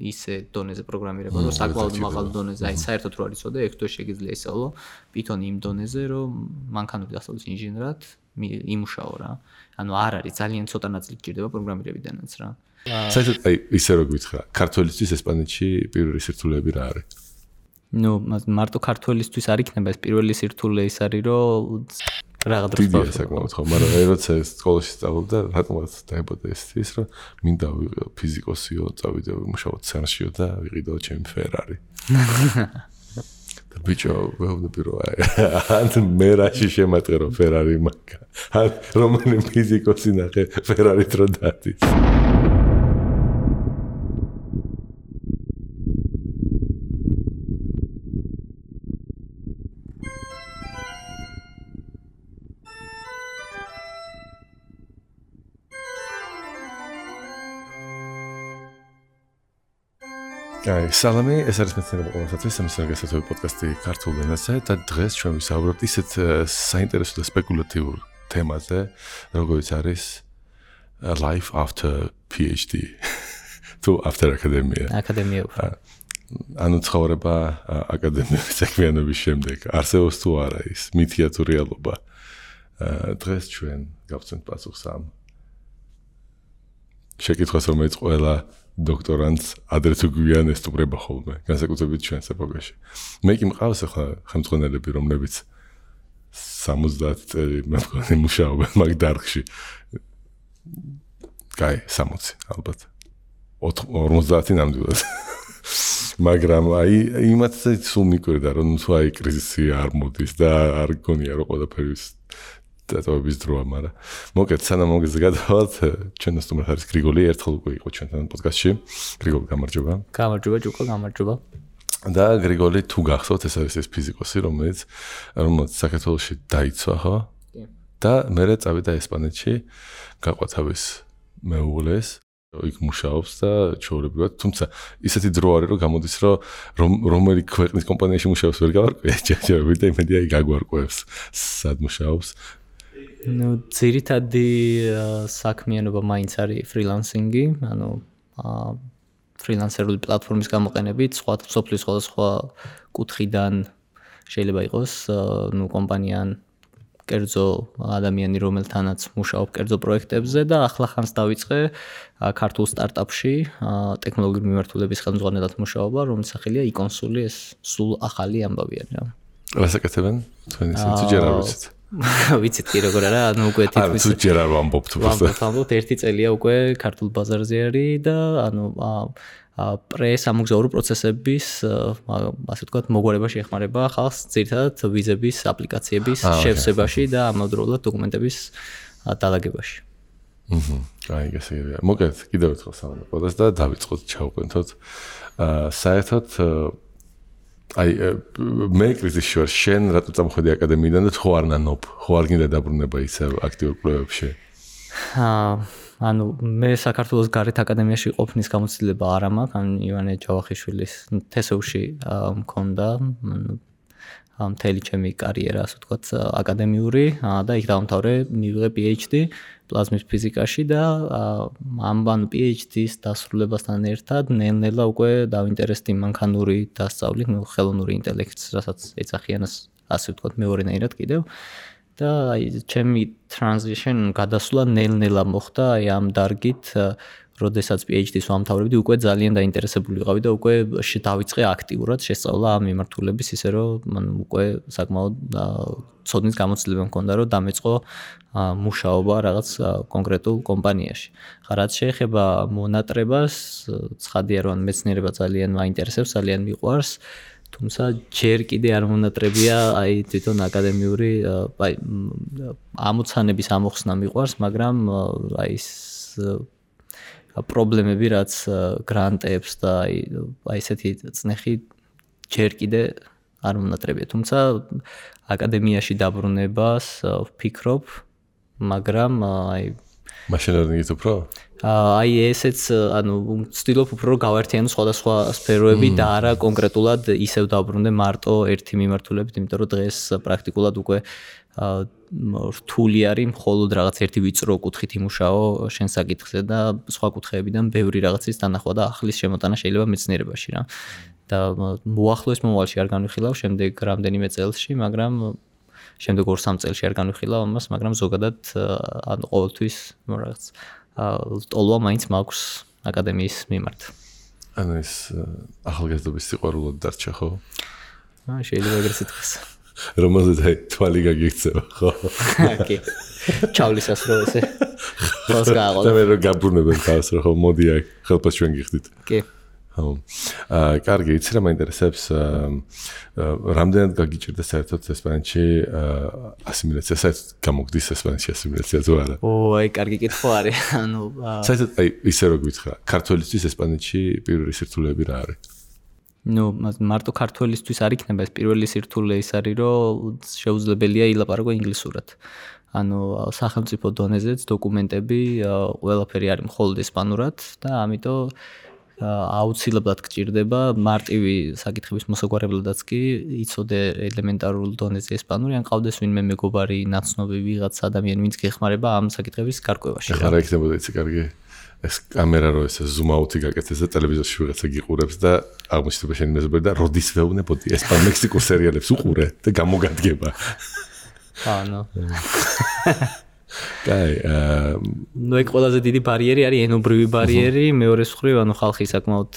ისე დონეზე პროგრამირება, რომ საკმაოდ მაღალ დონეზე, აი საერთოდ რო არ იცოდე, ექს თუ შეგიძლია ისწავლო Python იმ დონეზე, რომ მანქანური დასწავლის ინჟინერად იმუშაო რა. ანუ არ არის ძალიან ცოტა ნაწილი გჭირდება პროგრამირებიდანაც რა. საერთოდ აი ისე რო გითხრა, ქართველისთვის ესპანეთში პირველი სირთულეები რა არის? ნუ მარტო ქართველისთვის არ იქნება ეს პირველი სირთულე ის არის, რომ რაღაც დროს დიდი საკმაოდ ხო, მაგრამ როცა სკოლაში სწავლობდა, რატომაც დაიბადა ის რომ მინდა ვიყო ფიზიკოსიო, წავიდე ვიმუშაო ცერნშიო და ვიყიდო ჩემი ფერარი. და ბიჭო, ვეუბნები რომ ან მე რაში შემატყერო ფერარი მაგა. ან რომელი ფიზიკოსი ნახე ფერარით რო დადის. სალამი, ეს არის მეცნიერება ყოველსათვის, სამსახიობო პოდკასტი ქართულ ენაზე და დღეს ჩვენ ვისაუბრებთ ისეთ საინტერესო და სპეკულატიურ თემაზე, როგორიც არის life after PhD. თუ after academia. აკადემია. ანუ ცხოვრება აკადემიური საქმიანობის შემდეგ. არსებობს თუ არა ის მითია თუ რეალობა. დღეს ჩვენ გავცემთ პასუხს ამ შეკითხვას, რომელიც ყველა დოქტორანტს ადრე თუ გვიან ესტუმრება ხოლმე, განსაკუთრებით ჩვენს ეპოქაში. მე კი მყავს ახლა ხელმძღვანელები, რომლებიც 70 წელი მე მგონი მუშაობენ მაგ დარგში. კაი, 60 ალბათ. 50 ნამდვილად. მაგრამ აი იმათაც სულ მიკვირდა, რომ თუ აი კრიზისი არ მოდის და არ გონია რომ ყველაფერი დატოვების დროა, მაგრამ მოკეთ სანამ მოგეზე გადავალთ, ჩვენ სტუმრად არის გრიგოლი, ერთხელ უკვე იყო ჩვენთან პოდკასტში. გრიგოლი, გამარჯობა. გამარჯობა, ჯუკო, გამარჯობა. და გრიგოლი თუ გახსოვთ, ეს არის ეს ფიზიკოსი, რომელიც საქართველოში დაიცვა, ხო? და მერე წავიდა ესპანეთში, გაყვა თავის მეუღლეს, იქ მუშაობს და ჩვეულებრივად, თუმცა ისეთი დრო არის, რომ გამოდის, რომ რომელი ქვეყნის კომპანიაში მუშაობს ვერ გავარკვია, ჯერჯერობით და იმედია იქ გაგვარკვევს, სად მუშაობს. ნუ ძირითადი საქმიანობა მაინც არის ფრილანსინგი, ანუ ფრილანსერული პლატფორმის გამოყენებით, სოფლის სხვადასხვა კუთხიდან შეიძლება იყოს, ნუ კომპანიան კერძო ადამიანი, რომელთანაც მუშაობ კერძო პროექტებზე და ახლა ხანს დავიწყე ქართულ სტარტაპში ტექნოლოგიური მიმართულების ხელმძღვანელად მუშაობა, რომლის სახელია e-consuli, ეს სულ ახალი ამბავია რა. რას აკეთებენ? თქვენი თუ ჯერ არ ვიცით. ვიცით კი როგორ არა, ანუ უკვე თითქმის თუ ჯერ არ ვამბობთ უბრალოდ. ვამბობთ, ერთი წელია უკვე ქართულ ბაზარზე არის და ანუ პრესამოგზაურო პროცესების, ასე ვთქვათ, მოგვარება შეეხმარება ხალხს ძირითადად ვიზების აპლიკაციების შევსებაში და ამავდროულად დოკუმენტების დალაგებაში. აი, გასაგებია. მოგეთ, კიდევ ერთხელ სავანაკოდას და დავიწყოთ ჩავყვენთოთ. საერთოდ აი მე კრიზისში ვარ, შენ რატო წამოხვედი აკადემიიდან და ხო არ ნანობ, ხო არ გინდა დაბრუნება ისე აქტიურ კვლევებში? ანუ მე საქართველოს გარეთ აკადემიაში ყოფნის გამოცდილება არ მაქვს, ან ივანე ჯავახიშვილის თესევში მქონდა, მთელი ჩემი კარიერა, ასე ვთქვათ, აკადემიური და იქ დავამთავრე, მივიღე PhD პლაზმის ფიზიკაში და ამ PhD-ის დასრულებასთან ერთად ნელ-ნელა უკვე დავინტერესდი მანქანური დასწავლით, ხელოვნური ინტელექტს, რასაც ეძახიან, ასე ვთქვათ, მეორენაირად კიდევ. და აი ჩემი transition გადასვლა ნელ-ნელა მოხდა აი ამ დარგით, როდესაც PhD-ს ვამთავრებდი, უკვე ძალიან დაინტერესებული ვიყავი და უკვე დავიწყე აქტიურად შესწავლა ამ მიმართულების, ისე რომ უკვე საკმაოდ ცოდნის გამოცდილება მქონდა, რომ დამეწყო მუშაობა რაღაც კონკრეტულ კომპანიაში. რაც შეეხება მონატრებას, ცხადია რომ მეცნიერება ძალიან მაინტერესებს, ძალიან მიყვარს. თუმცა ჯერ კიდე არ მონატრებია აი თვითონ აკადემიური აი ამოცანების ამოხსნა მიყვარს, მაგრამ აი ეს პრობლემები რაც გრანტებს და აი ესეთი წნეხი ჯერ კიდე არ მონატრებია. თუმცა აკადემიაში დაბრუნებას ვფიქრობ, მაგრამ აი Machine learning-ით უფრო? აი ესეც ვცდილობ უფრო რომ გავაერთიანო სხვადასხვა სფეროები და არა კონკრეტულად ისევ დავბრუნდე მარტო ერთი მიმართულებით, იმიტომ რომ დღეს პრაქტიკულად უკვე რთული არის მხოლოდ რაღაც ერთი ვიწრო კუთხით იმუშაო შენ საკითხზე და სხვა კუთხეებიდან ბევრი რაღაცის დანახვა და ახლის შემოტანა შეიძლება მეცნიერებაში რა. და მოახლოეს მომავალში არ განვიხილავ შემდეგ რამდენიმე წელსში, მაგრამ შემდეგ 2-3 წელში არ განვიხილავ ამას, მაგრამ ზოგადად ყოველთვის რაღაც ტოლვა მაინც მაქვს აკადემიის მიმართ. ანუ ეს ახალგაზრდობის სიყვარულოდ დარჩა ხო? შეიძლება ეგრეც ითქვას. რომელზეც თვალი გაგიქცევა ხო? კი. ჩავლისას რო ესე. ხოს გააღო. და მე რო გაბრუნებენ თავს რო ხო მოდი აქ ხელფას ჩვენ გიხდით. კი. კარგი, იცი რა მაინტერესებს რამდენად გაგიჭირდა საერთოდ ესპანეთში ასიმილაცია, საერთოდ გამოგდის ესპანეთში ასიმილაცია თუ არა? აი, კარგი კითხვა არის. ანუ საერთოდ აი ისე რო გითხრა, ქართველისთვის ესპანეთში პირველი სირთულეები რა არის? მარტო ქართველისთვის არ იქნება ეს პირველი სირთულე ის არის, რომ შეუძლებელია ილაპარაკო ინგლისურად. ანუ სახელმწიფო დონეზეც დოკუმენტები ყველაფერი არის მხოლოდ ესპანურად და ამიტომ აუცილებლად გჭირდება მარტივი საკითხების მოსაგვარებლადაც კი იცოდე ელემენტარულ დონეზე ესპანური, ან ყავდეს ვინმე მეგობარი, ნაცნობი ვიღაც ადამიანი, ვინც გეხმარება ამ საკითხების გარკვევაში. ახლა რა იქნებოდა იცი კარგი? ეს კამერა რო ესე ზუმ აუთი გაკეთეს და ტელევიზორში ვიღაცა გიყურებს და აღმოჩნდება შენი მეზობელი და როდის ვეუბნებოდი ესპან-მექსიკურ სერიალებს უყურე და გამოგადგება. ანუ კაი, ეგ ყველაზე დიდი ბარიერი არის ენობრივი ბარიერი, მეორეს მხრივ ანუ ხალხი საკმაოდ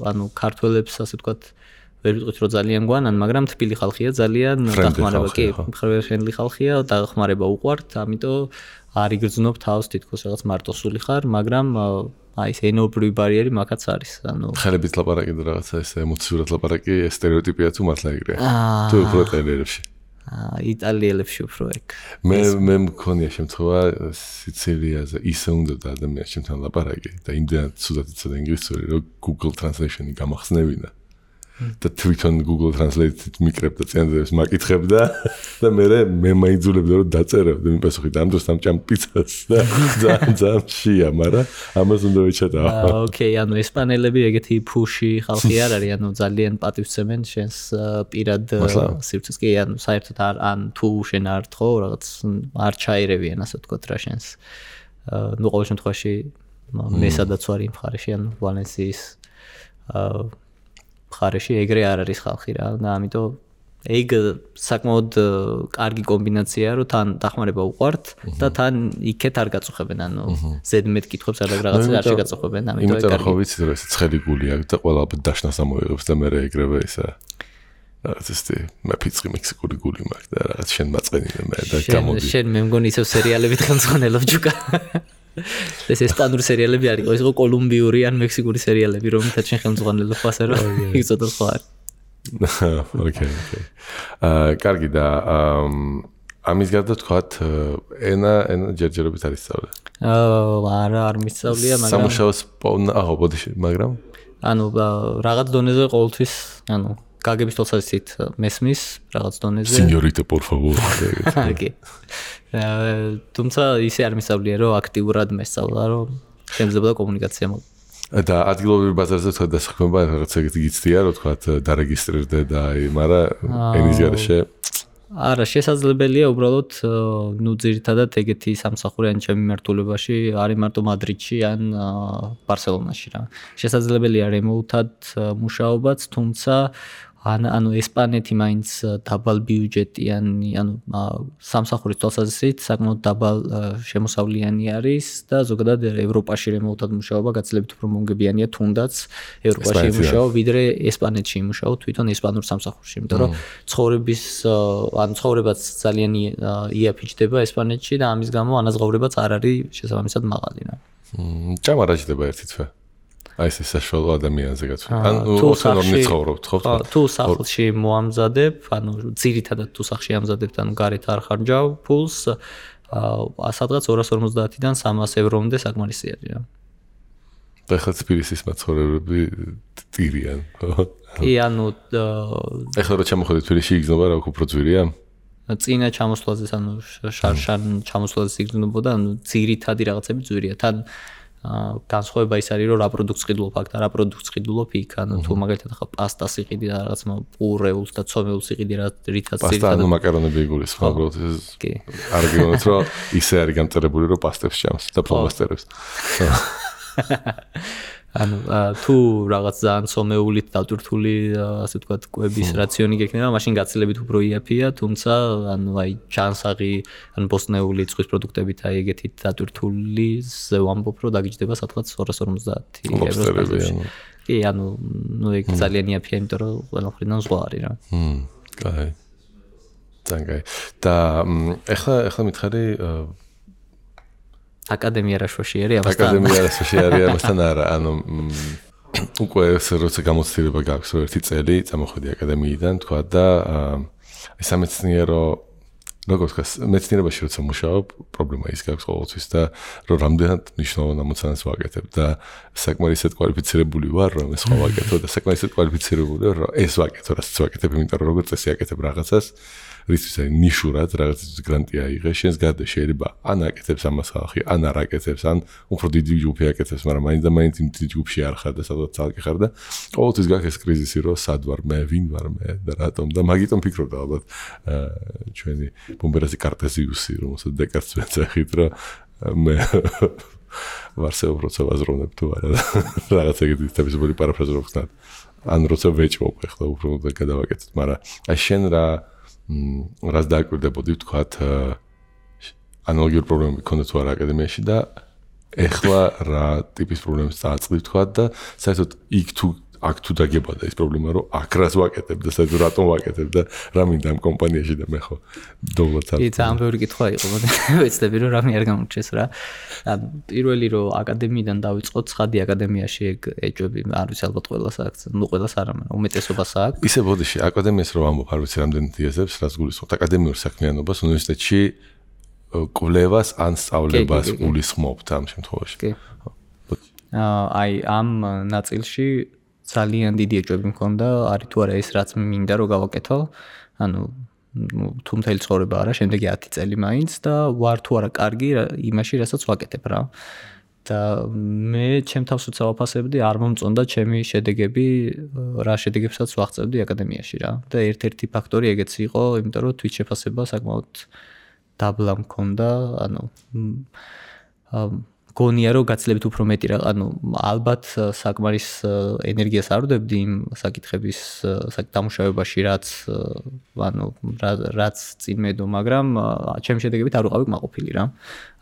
ანუ ქართველებს ასე ვთქვათ ვერ ვიტყვით რომ ძალიან გვანან, მაგრამ თბილი ხალხია ძალიან დახმარება კი, ფრენდლი ხალხია, დახმარება უყვართ, ამიტომ არ იგრძნობ თავს თითქოს რაღაც მარტოსული ხარ, მაგრამ აი ეს ენობრივი ბარიერი მაგაც არის. ანუ ხელებით ლაპარაკი და რაღაცა ეს ემოციურად ლაპარაკი სტერეოტიპია თუ მართლა ეგრეა? თუ უფრო ტელერებში? იტალიელებში უფრო ეგ. მე მქონია შემთხვევა სიცილიაზე ისე უნდა და ადამიანს ჩემთან ლაპარაკი და იმდენად ცუდად იცოდა ინგლისური რომ Google Translation-ი გამახსნევინა. და თვითონ Google Translate-ით მიკრებდა წინადადებს მაკითხებდა და მე მაიძულებდა რომ დაწერებდი მიპასუხი და ამ დროს ამ ჭამპიცას და ძალიან შია, მაგრამ ამას უნდა ვეჩატაო. ოკეი, ანუ ესპანელები ეგეთი ფუში ხალხი არ არის, ანუ ძალიან პატივცემენ შენს პირად სივრცეს კი, ანუ საერთოდ ან თუ შენ არ თხოვ რაღაც არ ჩაირევიან ასე ვთქვათ რა შენს. ნუ ყოველ შემთხვევაში მე სადაც ვარ იმ მხარეში, ანუ ვალენსიის მხარეში ეგრე არ არის ხალხი რა და ამიტომ ეგ საკმაოდ კარგი კომბინაციაა რომ თან დახმარება უყვართ და თან იქეთ არ გაწუხებენ ანუ ზედმეტ კითხვებს არ რაღაცა არ შეგაწუხებენ ამიტომ ეგ კარგი. ხო ვიცი რომ ეს ცხელი გული აქვს და ყველა დაშნას ამოიღებს და მე ეგრევე ისა რაღაც ეს მე ფიცხი მექსიკური გული მაქვს და რაღაც შენ მაწყენინე მე და გამოდი. შენ მე მგონი ისევ სერიალებით ხელმძღვანელობ ჯუკა. ეს ესპანური სერიალები არის, ის იყო კოლუმბიური ან მექსიკური სერიალები, რომელთაც შენ ხელმძღვანელობ ასე რომ იცოდე სხვა არის. ოკეი. კარგი და ამის გარდა თქვათ ენა ჯერჯერობით არის სწავლე. არა, არ მისწავლია, მაგრამ სამუშაოს ბოდიში, მაგრამ ანუ რაღაც დონეზე ყოველთვის, ანუ გაგების თვალსაზრისით მესმის რაღაც დონეზე. Señorita, por favor. ოკეი. თუმცა ისე არ მისწავლია, რომ აქტიურად მესწავლა, რომ შემიძლია კომუნიკაცია მოხდეს. და ადგილობრივ ბაზარზე თქვა დასაქმება რაღაც ეგეთი გიცდია, რომ თქვა დარეგისტრირდე და აი, მაგრამ ენის გარეშე არა, შესაძლებელია უბრალოდ ნუ ძირითადად ეგეთი სამსახური ან ჩემი მიმართულებაში არის მარტო მადრიდში ან ბარსელონაში რა. შესაძლებელია რემოუთად მუშაობაც, თუმცა ანუ ესპანეთი მაინც დაბალ ბიუჯეტიანი, ანუ სამსახურის თვალსაზრისით საკმაოდ დაბალ შემოსავლიანი არის და ზოგადად ევროპაში რემოუთად მუშაობა გაცილებით უფრო მომგებიანია თუნდაც ევროპაში იმუშაო, ვიდრე ესპანეთში იმუშაო თვითონ ესპანურ სამსახურში, იმიტომ რომ ცხოვრებაც ძალიან იაფიჩდება ესპანეთში და ამის გამო ანაზღაურებაც არ არის შესაბამისად მაღალი რა. ჭამა რა ჭდება ერთი თვე? აი ეს საშუალო ადამიანზე გაცვლა. ანუ ოსონორნი ცხოვრობთ ხო? თუ სახლში მოამზადებ, ანუ ძირითადად თუ სახლში ამზადებ, ანუ გარეთ არ ხარჯავ ფულს, სადღაც 250-დან 300 ევრომდე საკმარისი არის რა. და ხა თბილისის მაცხოვრებლები ტირიან, ხო? კი, ანუ ეხლა რა ჩამოходит თბილისში იგზნობა რა უფრო ძვირია? წინა ჩამოსვლაზე ანუ შარშან ჩამოსვლაზე სიგრძნობოდა ანუ ძირითადი რაღაცები ძვირია თან განსხვავება ის არის რომ რა პროდუქტს ყიდულობ აქ და რა პროდუქტს ყიდულობ იქ ანუ თუ მაგალითად ახლა პასტას იყიდი და რაღაც პურეულს და ცომეულს იყიდი რა რითაც პასტა ანუ მაკარონები იგულისხმობ უბრალოდ არ გიგონოთ რომ ისე არის გამწერებული რომ პასტებს ჭამს და ფლომასტერებს ანუ თუ რაღაც ძალიან ცომეულით დატვირთული ასე ვთქვათ კვების რაციონი გექნება მაშინ გაცილებით უფრო იაფია თუმცა ანუ აი ჩანსაღი ან ბოსტნეული წყვის პროდუქტებით აი ეგეთით დატვირთული ზე ვამბობ რომ დაგიჯდება სადღაც 250 ევროს კი ანუ ნუ ეგ ძალიან იაფია იმიტომ რომ ყველა მხრიდან ზღვა არის რა კაი ძალიან და ეხლა მითხარი აკადემია რაშვაში არის ამასთან აკადემია რაშვაში არის ამასთან არა ანუ უკვე როცა გამოცდილება გაქვს რომ ერთი წელი წამოხვედი აკადემიიდან თქვა და სამეცნიერო როგორც მეცნიერებაში როცა მუშაობ პრობლემა ის გაქვს ყოველთვის და რომ რამდენად მნიშვნელოვან ამოცანას ვაკეთებ და საკმაოდ ისეთ კვალიფიცირებული ვარ რომ ეს სხვა ვაკეთო და საკმაოდ ისეთ კვალიფიცირებული ვარ რომ ეს ვაკეთო რასაც ვაკეთებ იმიტომ რომ როგორც წესი აკეთებ რაღაცას რისთვის არის ნიშურად რაღაცის გრანტი აიღე შენს გარდა შეიძლება ან აკეთებს ამას ხალხი ან არ აკეთებს ან უფრო დიდი ჯგუფი აკეთებს მაგრამ მაინც და მაინც იმ დიდი ჯგუფში არ ხარ და სადღაც წალკი ხარ და ყოველთვის გაქვს ეს კრიზისი რომ სად ვარ მე ვინ ვარ მე და რატომ და მაგიტომ ფიქრობდა ალბათ ჩვენი ბომბერასი კარტეზიუსი რომელსაც დეკარტს ვეძახით რომ მე ვარსეობ როცა ვაზროვნებ თუ არა რაღაც ეგეთი თავისუფალი პარაფრაზა რო ხსნათ ან როცა ვეჭვობ ახლა უფრო გადავაკეთეთ მაგრამ აი შენ რას დააკვირდებოდი ვთქვათ ანალოგიური პრობლემები ქონდა თუ არა აკადემიაში და ეხლა რა ტიპის პრობლემებს წააწყდი ვთქვათ და საერთოდ იქ აქ თუ დაგებოდა ის პრობლემა რომ აქ რას ვაკეთებ და საერთოდ რატომ ვაკეთებ და რა მინდა ამ კომპანიაში და მე ხო დოვლად არ კი ძალიან ბევრი კითხვა იყო ვეცდები რომ რამე არ გამორჩეს რა პირველი რომ აკადემიიდან დავიწყოთ ცხადი აკადემიაში ეგ ეჭვები არ ვიცი ალბათ ყველას აქვს ნუ ყველას არა მაგრამ უმეტესობას აქვს ისე ბოდიში აკადემიას რომ ამბობ არ ვიცი რამდენი დიაზებს რას გულისხმობთ აკადემიურ საქმიანობას უნივერსიტეტში კვლევას ან სწავლებას გულისხმობთ ამ შემთხვევაში კი აი ამ ნაწილში ძალიან დიდი ეჭვები მქონდა, არის თუ არა ეს რაც მინდა რომ გავაკეთო. ანუ თუ მთელი ცხოვრება არა, შემდეგი 10 წელი მაინც და ვარ თუ არა კარგი იმაში, რასაც ვაკეთებ რა. და მე ჩემ თავს უცებ ვაფასებდი, არ მომწონდა ჩემი შედეგები, რა შედეგებსაც ვაღწევდი აკადემიაში რა. და ერთ-ერთი ფაქტორი ეგეც იყო, იმიტომ რომ თვით შეფასება საკმაოდ დაბლა მქონდა, ანუ გონია რომ გაცილებით უფრო მეტი რა, ანუ ალბათ საკმარის ენერგიას არ ვდებდი იმ საკითხების დამუშავებაში, რაც წინ მედო, მაგრამ ჩემი შედეგებით არ ვიყავი კმაყოფილი რა.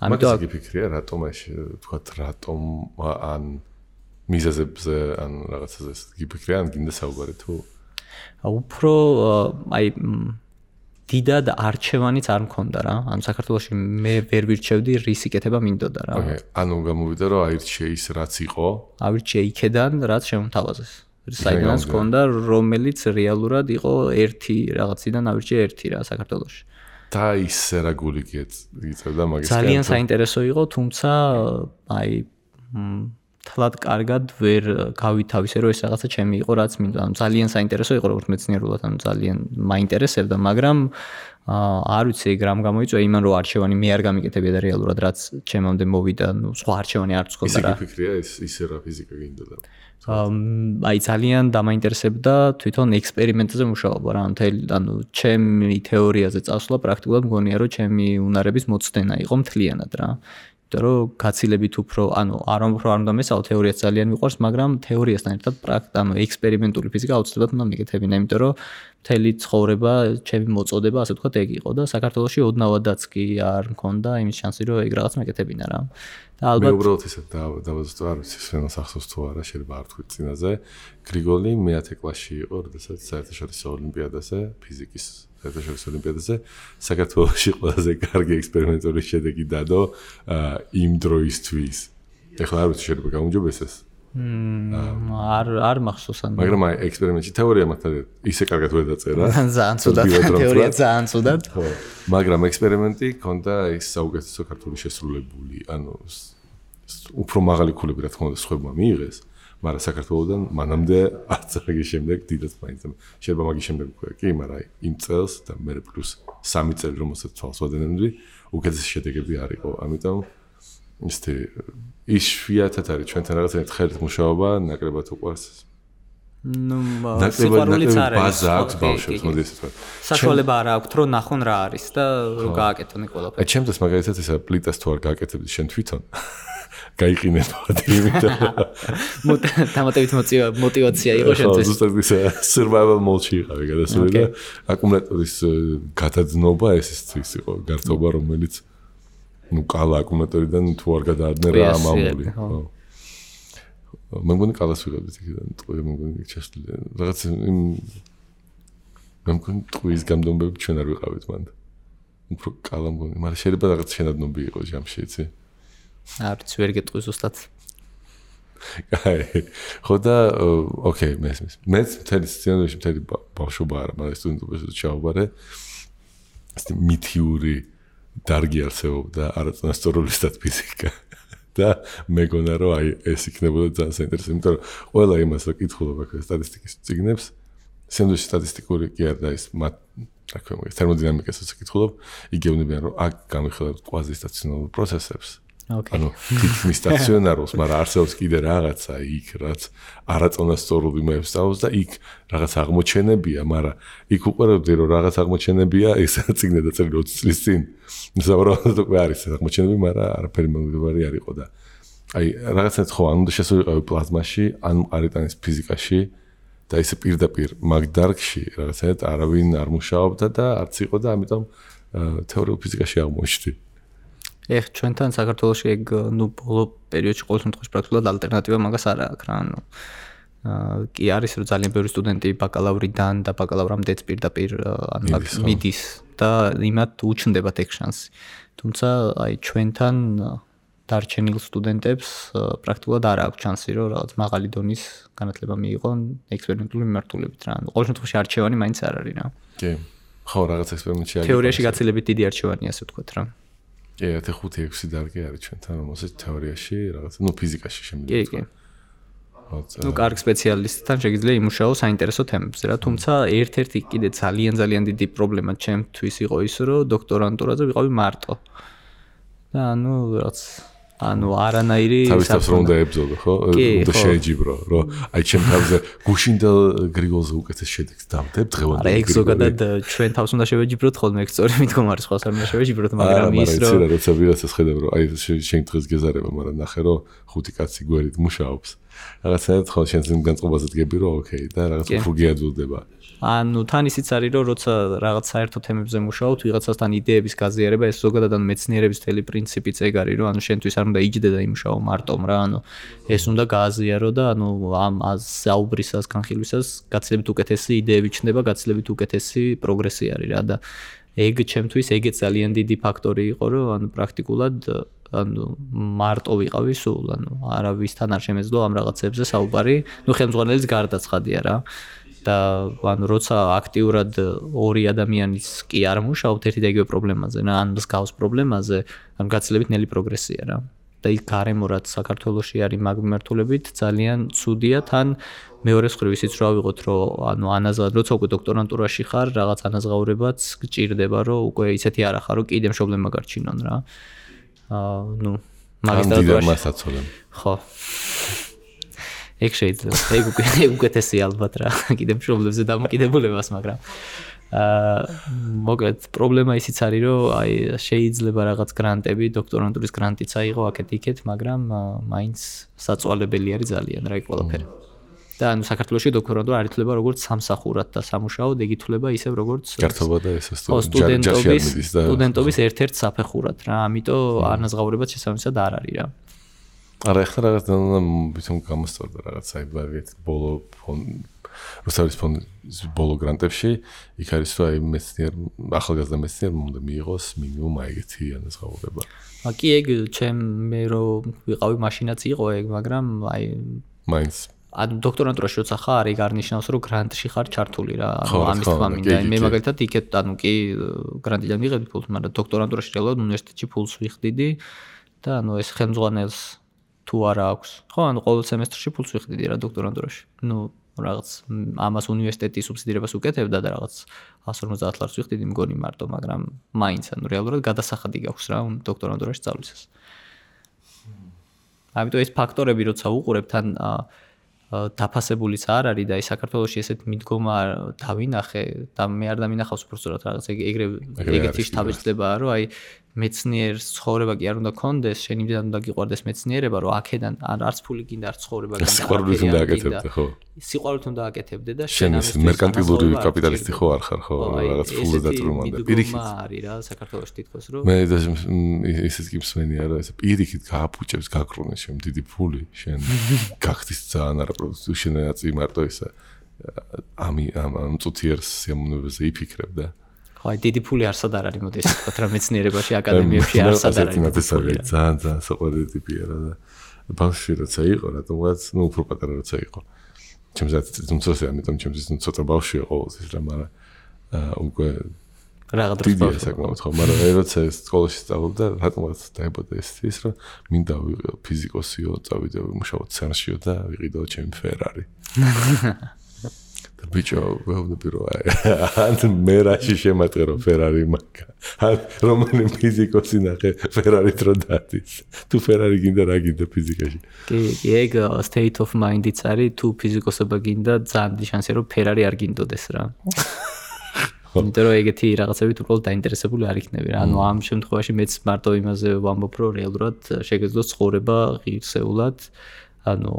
ამიტომ გიფიქრია რატომ ეს ვთქვათ რატომ ან მიზეზებზე ან რაღაცაზე გიფიქრია ან გინდა საუბარი თუ უფრო აი დიდად არჩევანიც არ მქონდა რა. ანუ საქართველოში მე ვერ ვირჩევდი რის იკეთება მინდოდა რა. ანუ გამოვიდა რომ აირჩე ის რაც იყო. ავირჩე იქედან რაც შემოთავაზეს. საიდანაც მქონდა რომელიც რეალურად იყო ერთი რაღაციდან ავირჩე ერთი რა საქართველოში. და ისე რა გული გიწევდა მაგის ძალიან საინტერესო იყო, თუმცა აი თლად კარგად ვერ გავითავისე რომ ეს რაღაცა ჩემი იყო რაც მინდა. ანუ ძალიან საინტერესო იყო როგორც მეცნიერულად, ანუ ძალიან მაინტერესებდა, მაგრამ არ ვიცი ეგ რამ გამოიწვია იმან რომ არჩევანი მე არ გამიკეთებია და რეალურად რაც ჩემამდე მოვიდა, ну სხვა არჩევანი არ წქონდა რა. ისე გიფიქრია ისე რა ფიზიკა გინდოდა. აი ძალიან დამაინტერესებდა თვითონ ექსპერიმენტზე მუშაობა რა. ანუ ჩემი თეორიაზე წასვლა პრაქტიკულად მგონია რომ ჩემი უნარების მოცდენა იყო მთლიანად რა. რომ გაცილებით უფრო, ანუ არ უნდა მესაო თეორიაც ძალიან მიყვარს, მაგრამ თეორიასთან ერთად ანუ ექსპერიმენტული ფიზიკა აუცილებლად უნდა მეკეთებინა, იმიტომ რომ მთელი ცხოვრება, ჩემი მოწოდება, ასე ვთქვათ, ეგ იყო და საქართველოში ოდნავადაც კი არ მქონდა იმის შანსი, რომ ეგ რაღაც მეკეთებინა რა. და ალბათ მე უბრალოდ ისე დავაზუსტო, არ ვიცი, სვენოს ახსოვს თუ არა, შეიძლება არ თქვი წინაზე. გრიგოლი მე-10 კლასში იყო, როდესაც საერთაშორისო ოლიმპიადაზე, ფიზიკის საერთაშორისო ოლიმპიადაზე საქართველოში ყველაზე კარგი ექსპერიმენტული შედეგი დადო იმ დროისთვის. ეხლა არ ვიცი შეიძლება გაუმჯობესდეს. არ მახსოვს ან. მაგრამ აი ექსპერიმენტში თეორია მართლა ისე კარგად ვერ დაწერა. ძალიან ცუდად თეორია ძალიან ცუდად. ხო. მაგრამ ექსპერიმენტი ქონდა ის საუკეთესო ქართული შესრულებული, ანუ უფრო მაღალი ქულები რა თქმა უნდა სხვებმა მიიღეს, მაგრამ საქართველოსთან მანამდე არც მაგის შემდეგ დიდად მაინც შეიძლება მაგის შემდეგ უკვე კი, მაგრამ იმ წელს და მე პლუს 3 წელი რომელსაც თვალს ვადენები, უკეთესი შედეგები არ იყო. ამიტომ ისეთი იშვიათად არის ჩვენთან რაღაც ერთხელ მუშაობა, ნაკლებად უყვარს. სიყვარულიც არ არის. ბაზა აქვს ბავშვებს, მოდი ესე ვთქვა. საშუალება არ აქვს, რომ ნახონ რა არის და რომ გააკეთონ ყველაფერი. ჩემთვის მაგალითად ესა პლიტას თუ არ გააკეთებდი შენ თვითონ გაიყინებოდი, იმიტომ დამატებით мотивация იყო შენთვის. ზუსტად ისე survival mode-ში იყავი გადასული და აკუმულატორის გადაძნობა ეს ის იყო გართობა, რომელიც კალა აკუმულატორიდან თუ არ გადაადნე რა ამამული. მე მგონი კალას ვიღებდით იქიდან, ტყვია მე მგონი ჩასული. რაღაც იმ მე მგონი ტყვის გამდომბები ჩვენ არ ვიყავით მანდ. უფრო კალა მგონი, მაგრამ შეიძლება რაღაც შენადნობი იყო ჯამში, იცი? არც ვერ გეტყვი ზუსტად. ხო და ოკეი, მე მთელი სცენარში მთელი ბავშვობა არა, მაგრამ სტუდენტობაში ჩავაბარე. ეს მითიური დარგი არსებობდა არაწონასწორული სტატისტიკა. და მეგონა რომ აი ეს იქნებოდა ძალიან საინტერესო, იმიტომ რომ ყველა იმას რა კითხულობ აქ სტატისტიკის წიგნებს, სენდვიჩის სტატისტიკური კი არ და ის რა ქვია მაგას თერმოდინამიკასაც კითხულობ, იგევნებიან რომ აქ გამიხილავთ კვაზისტაციონალურ პროცესებს. ანუ თითქმის სტაციონარულს, მაგრამ არსებობს კიდე რაღაცა იქ, რაც არაწონასწორულ იმებს სწავლობს და იქ რაღაც აღმოჩენებია, მაგრამ იქ უყურებდი რომ რაღაც აღმოჩენებია, ეს წიგნი დაწერილი 20 წლის წინ. ზოგადად უკვე არის აღმოჩენები, მაგრამ არაფერი მომგებარი არ იყო და აი რაღაცნაირად ხო ანუ შესულიყავი პლაზმაში, ან არიტანის ფიზიკაში და ისე პირდაპირ მაგ დარგში რაღაცნაირად არავინ არ მუშაობდა და არც იყო და ამიტომ თეორიულ ფიზიკაში აღმოჩნდი. ეხ ჩვენთან საქართველოში ეგ ბოლო პერიოდში ყოველ შემთხვევაში პრაქტიკულად ალტერნატივა მაგას არ აქვს რა კი არის რომ ძალიან ბევრი სტუდენტი ბაკალავრიდან და ბაკალავრამდეც პირდაპირ მიდის და იმათ უჩნდებათ ეგ შანსი. თუმცა აი ჩვენთან დარჩენილ სტუდენტებს პრაქტიკულად არ აქვს შანსი რომ რაღაც მაღალი დონის განათლება მიიღონ ექსპერიმენტული მიმართულებით რა. ყოველ შემთხვევაში არჩევანი მაინც არ არის რა. კი. ხო, რაღაც ექსპერიმენტში არის. თეორიაში გაცილებით დიდი არჩევანია, ასე ვთქვათ რა. კი, 5-6 დარგი არის ჩვენთან, რომელსაც თეორიაში რაღაც, ფიზიკაში შემიძლია. კი, კი. კარგ სპეციალისტთან შეგიძლია იმუშაო საინტერესო თემებზე რა, თუმცა ერთ-ერთი კიდე ძალიან დიდი პრობლემა ჩემთვის იყო ის, რომ დოქტორანტურაზე ვიყავი მარტო. და რაც არანაირი თავისთავად რომ დაებრძოლო, ხო? უნდა შეეჯიბრო, რომ აი ჩემ თავზე გუშინდა გრიგოლზე უკეთეს შედეგს დავდებ დღევანდელი. არა, ეგ ზოგადად ჩვენ თავს უნდა შევეჯიბროთ ხოლმე, ეგ სწორი მდგომარი სხვას არ უნდა შევეჯიბროთ, მაგრამ ის რომ არა, როცა ვიღაცას ხედავ რომ აი შენ დღეს გეზარება, მაგრამ ნახე რომ 5 კაცი გვერდით მუშაობს. რაღაცნაირად ხო შენ განწყობაზე დგები რომ ოკეი და რაღაც უფრო გიაძულდება. თან ისიც არის რომ როცა რაღაც საერთო თემებზე მუშაობთ, ვიღაცასთან იდეების გაზიარება, ეს ზოგადად მეცნიერების თელი პრინციპიც ეგ არის, რომ შენთვის არ უნდა იჯდე და იმუშაო მარტომ რა, ეს უნდა გააზიარო და ამ საუბრისას, განხილვისას გაცილებით უკეთესი იდეები ჩნდება, გაცილებით უკეთესი პროგრესი არის რა და ეგ ჩემთვის ეგეც ძალიან დიდი ფაქტორი იყო, რომ პრაქტიკულად მარტო ვიყავი სულ, არავისთან არ შემეძლო ამ რაღაცებზე საუბარი, ხელმძღვანელის გარდაცხადია რა. და როცა აქტიურად ორი ადამიანის კი არ მუშაობთ ერთი და იგივე პრობლემაზე, ან მსგავს პრობლემაზე, გაცილებით ნელი პროგრესია რა. და იქ გარემო რაც საქართველოში არის მაგ მიმართულებით ძალიან ცუდია, თან მეორე მხრივ ისიც რა ვიღოთ, რომ ანაზღაურებად, როცა უკვე დოქტორანტურაში ხარ, რაღაც ანაზღაურებაც გჭირდება, რომ უკვე ისეთი არ ახარო, კიდე პრობლემა გარჩინონ რა. მაგისტრატურაში. ხო. ეგ შეიძლება, ეგ უკეთესია ალბათ რა, კიდე პრობლემებზე დამოკიდებულებას, მაგრამ მოკლედ პრობლემა ისიც არის, რომ აი შეიძლება რაღაც გრანტები, დოქტორანტურის გრანტიც აიღო აქეთ-იქეთ, მაგრამ მაინც საწვალებელი არის ძალიან რა იქ ყველაფერი. და საქართველოში დოქტორანტურა არ ითვლება როგორც სამსახურად და სამუშაოდ, ეგ ითვლება ისევ როგორც გართობა და ეს სტუდენტობის ერთ-ერთ საფეხურად რა, ამიტომ ანაზღაურებაც შესაბამისად არ არის რა. არა, ახლა რაღაც თვითონ გამოსწორდა რაღაც საერთოდ ბოლო რუსთავის ფონდის ბოლო გრანტებში იქ არის რომ აი მეცნიერ ახალგაზრდა მეცნიერმა უნდა მიიღოს მინიმუმ ეგეთი ანაზღაურება. კი ეგ მე რომ ვიყავი მაშინაც იყო ეგ, მაგრამ აი მაინც დოქტორანტურაში როცა ხარ, ეგ არ ნიშნავს რომ გრანტში ხარ ჩართული რა, ამის თქმა მინდა. მე მაგალითად იქეთ კი გრანტიდან მიღებდი ფულს, მაგრამ დოქტორანტურაში რეალურად უნივერსიტეტში ფულს ვიხდიდი და ეს ხელმძღვანელს თუ არა აქვს. ხო, ანუ ყოველ სემესტრში ფულს ვიხდიდი რა დოქტორანტურაში. რაღაც ამას უნივერსიტეტის სუბსიდირებას უკეთებდა და რაღაც 150 ლარს ვიხდიდი მგონი მარტო, მაგრამ მაინც ანუ რეალურად გადასახადი გაქვს რა დოქტორანტურაში სწავლისას. ამიტომ ეს ფაქტორები როცა უყურებ თან დაფასებულიც არ არის და საქართველოში ესეთ მიდგომა დავინახე და მე არ დამინახავს უბრალოდ რაღაც ეგრეთი შთაბეჭდილებაა რომ აი მეცნიერს ცხოვრება კი არ უნდა კონდეს, შენ იმდან უნდა გიყვარდეს მეცნიერება, რომ აქედან არც ფული გინდა, არც ცხოვრება გინდა. სიყვარულით უნდა აკეთებდე, ხო? სიყვარულით უნდა აკეთებდე და შენ ეს მერკანტილური კაპიტალისტი ხო არ ხარ, ხო? რაღაც ფულზე დატრუმანდა. პირიქით არის რა საქართველოში თითქოს რომ მე ისიც კი მსმენია რა, ეს პირიქით გააფუჭებს გაკრუნეს შენ დიდი ფული, შენ გახდის ძალიან არაპროდუქტიული შენ აწი მარტო ისა ამ წუთიერს სიამოვნებაზე იფიქრებ და აი დიდი ფული არსად არ არის მოდი ესე ვთქვა რა მეცნიერებაში აკადემიებში არსად არ არის ძალიან საყვარელი ტიპია რა და ბავშვი როცა იყო რატომღაც უფრო პატარა როცა იყო ჩემზეც თუმცა ამიტომ ჩემზეც ცოტა ბავშვია ყოველთვის რა მაგრამ უკვე რაღაც დროს ბავშვი საკმაოდ ხო მაგრამ როცა სკოლაში სწავლობდა რატომღაც დაიბადა ეს რომ მინდა ვიყო ფიზიკოსიო წავიდე ვიმუშაო ცერნშიო და ვიყიდო ჩემი ფერარი ბიჭო, ვეუბნები რომ ან მე რაში შემატყერო ფერარი მაგა. ან რომანი ფიზიკოსი ნახე ფერარით რო დადის. თუ ფერარი გინდა რა გინდა ფიზიკაში. კი, ეგ state of mind-იც არის, თუ ფიზიკოსობა გინდა, ძალიან შანსია რომ ფერარი არ გინდოდეს რა. იმიტომ რომ ეგეთი რაღაცებით უბრალოდ დაინტერესებული არ იქნები რა. ანუ ამ შემთხვევაში მეც მარტო იმაზე ვამბობ, რომ რეალურად შეგეძლოს ცხოვრება ღირსეულად. ანუ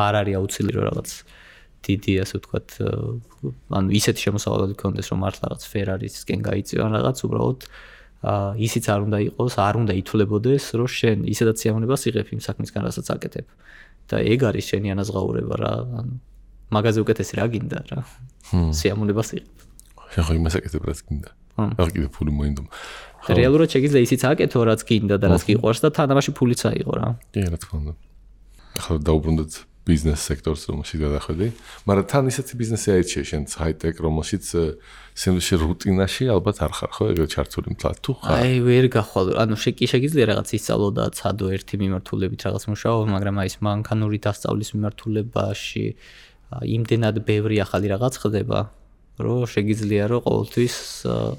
არ არის აუცილებელი რომ რაღაც დიდი ასე ვთქვათ, ანუ ისეთი შემოსავალი გქონდეს, რომ მართლა რაღაც ფერარისკენ გაიწევან რაღაც, უბრალოდ ისიც არ უნდა იყოს, არ უნდა ითვლებოდეს, რომ შენ ისედაც სიამოვნებას იღებ იმ საქმისგან, რასაც აკეთებ. და ეგ არის შენი ანაზღაურება რა, ანუ მაგაზე უკეთესი რა გინდა რა. სიამოვნებას იღებ. შენ ხო იმას აკეთებ, რაც გინდა. არ კიდე ფული მოინდომა. რეალურად შეგიძლია ისიც აკეთო, რაც გინდა და რაც გიყვარს და თანამაში ფულიც აიღო რა. კი, რა თქმა უნდა. ახლა დაუბრუნდეთ ბიზნეს სექტორს რომელშიც გადახვედი, მაგრამ თან ისეთი ბიზნესი აირჩიე შენც ჰაი-ტეკ რომელშიც სენდვიჩი რუტინაში ალბათ არ ხარ ხო ეგრე ჩართული მთლად თუ ხარ? აი ვერ გახვალ, ანუ შეგიძლია რაღაც ისწავლო და ცადო ერთი მიმართულებით რაღაც მუშაო, მაგრამ აი ეს მანქანური დასწავლის მიმართულებაში იმდენად ბევრი ახალი რაღაც ხდება, რომ შეგიძლია რომ ყოველთვის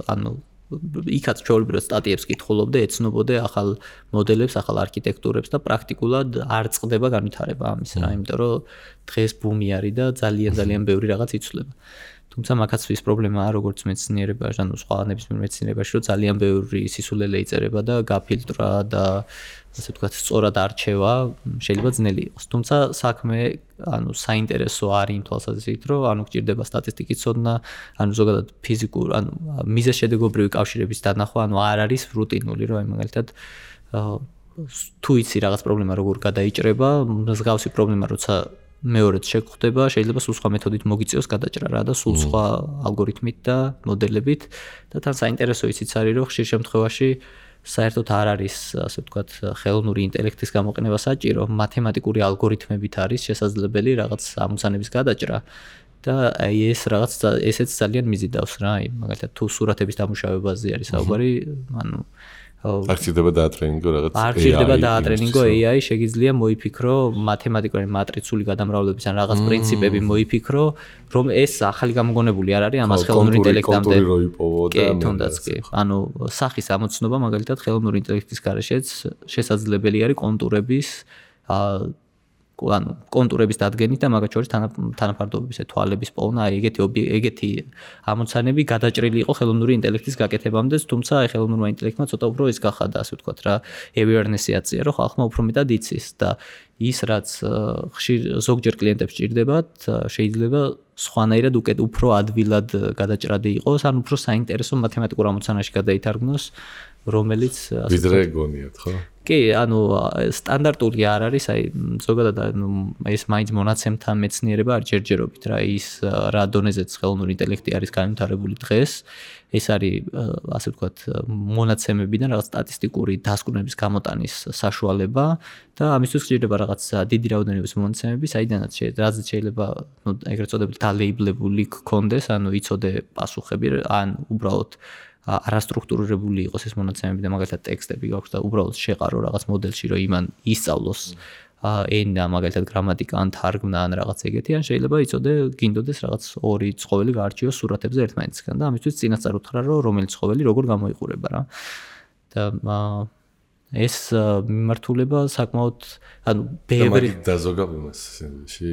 ანუ იქაც ჩაოლებრო სტატიებს კითხულობდე, ეცნობოდე ახალ მოდელებს, ახალ არქიტექტურებს და პრაქტიკულად არ წყდება განვითარება ამის რა, იმიტომ რომ დღეს ბუმი არის და ძალიან ბევრი რაღაც იცვლება. თუმცა მაგაც ის პრობლემაა როგორც მეცნიერებაში, ანუ სხვა ნებისმიერ მეცნიერებაში, რომ ძალიან ბევრი სისულელე იწერება და გაფილტრა და ასე ვთქვათ, სწორად არჩევა შეიძლება ძნელი იყოს. თუმცა საქმე, ანუ საინტერესო არის იმ თვალსაზრისით, რომ ანუ გჭირდება სტატისტიკის ცოდნა, ანუ ზოგადად ფიზიკურ, ანუ მიზეზშედეგობრივი კავშირების დანახვა, ანუ არ არის რუტინული, რომ აი მაგალითად თუ იცი რაღაც პრობლემა როგორ გადაიჭრება, მსგავსი პრობლემა როცა მეორეც შეგხვდება, შეიძლება სულ სხვა მეთოდით მოგიწევს გადაჭრა რა და სულ სხვა ალგორითმით და მოდელებით და თან საინტერესო ისიც არის, რომ ხშირ შემთხვევაში საერთოდ არ არის, ასე ვთქვათ, ხელოვნური ინტელექტის გამოყენება საჭირო, მათემატიკური ალგორითმებით არის შესაძლებელი რაღაც ამოცანების გადაჭრა და აი ეს რაღაც ესეც ძალიან მიზიდავს რა, აი მაგალითად თუ სურათების დამუშავებაზე არის საუბარი, ანუ არ ჭირდება დაატრენინგო რაღაც არ ჭირდება დაატრენინგო AI, შეგიძლია მოიფიქრო მათემატიკური მატრიცული გადამრავლების ან რაღაც პრინციპები მოიფიქრო, რომ ეს ახალი გამოგონებული არ არის ამას ხელოვნური ინტელექტამდე. კი, თუნდაც კი. ანუ სახის ამოცნობა მაგალითად ხელოვნური ინტელექტის გარეშეც შესაძლებელი არის კონტურების ანუ კონტურების დადგენით და მაგათ შორის თანაფარდობების თვალების პოვნა, აი ეგეთი ამოცანები გადაჭრილი იყო ხელოვნური ინტელექტის გაკეთებამდე, თუმცა აი ხელოვნურმა ინტელექტმა ცოტა უფრო ის გახადა, ასე ვთქვათ რა, awareness-ი აწია, რომ ხალხმა უფრო მეტად იცის და ის რაც ხშირ ზოგჯერ კლიენტებს ჭირდებათ, შეიძლება სხვანაირად უფრო ადვილად გადაჭრადი იყოს, ან უფრო საინტერესო მათემატიკურ ამოცანაში გადაითარგმნოს, რომელიც ვიდრე გონიათ, ხო? კი, ანუ სტანდარტული არ არის, აი ზოგადად ანუ ეს მაინც მონაცემთა მეცნიერება არ ჯერჯერობით რა, ის რა დონეზეც ხელოვნური ინტელექტი არის განვითარებული დღეს, ეს არის ასე ვთქვათ მონაცემებიდან რაღაც სტატისტიკური დასკვნების გამოტანის საშუალება და ამისთვის გჭირდება რაღაც დიდი რაოდენობის მონაცემები, საიდანაც შეიძლება ნუ ეგრეთ წოდებული დალეიბლებული გქონდეს, ანუ იცოდე პასუხები, ან უბრალოდ არასტრუქტურირებული იყოს ეს მონაცემები და მაგალითად ტექსტები გაქვს და უბრალოდ შეყარო რაღაც მოდელში, რომ იმან ისწავლოს ენა, მაგალითად გრამატიკა ან თარგმნა ან რაღაც ეგეთი, ან შეიძლება იცოდე გინდოდეს რაღაც ორი ცხოველი გაარჩიო სურათებზე ერთმანეთისგან და ამისთვის წინასწარ უთხრა რომ რომელი ცხოველი როგორ გამოიყურება რა. და ეს მიმართულება საკმაოდ ანუ ბევრი დაზოგავებას სინდში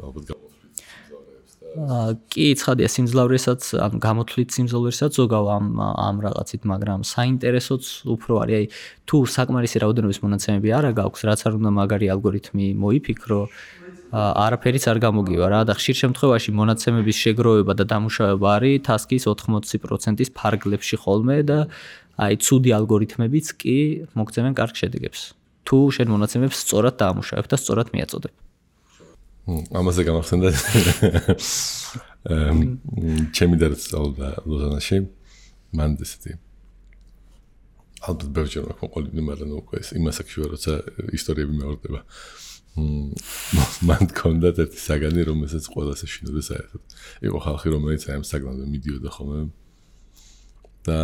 ალბათ გამოთვლით სიმძლავრეებს და კი ცხადია სიმძლავრესაც ან გამოთვლით სიმძლავრესაც ზოგავ ამ რაღაცით, მაგრამ საინტერესოც უფრო არის. აი თუ საკმარისი რაოდენობის მონაცემები არა გაქვს, რაც არ უნდა მაგარი ალგორითმი მოიფიქრო, არაფერიც არ გამოგივა რა და ხშირ შემთხვევაში მონაცემების შეგროვება და დამუშავება არის task-ის 80%-ის ფარგლებში ხოლმე და აი ცუდი ალგორითმებიც კი მოგცემენ კარგ შედეგებს. თუ შენ მონაცემებს სწორად დაამუშავებ და სწორად მიაწოდებ. ამაზე გამახსენდა ჩემი დარწმუნდა ლოზანაში მან ესეთი ალბათ ბევრჯერ მაქვს ყოლიბი, მაგრამ უკვე იმას აქ შევარ, როცა ისტორიები მეორდება. მან კონდა ერთი საგანი, რომელსაც ყველას ეშინოდა საერთოდ. იყო ხალხი, რომელიც აი ამ საგანზე მიდიოდა ხოლმე და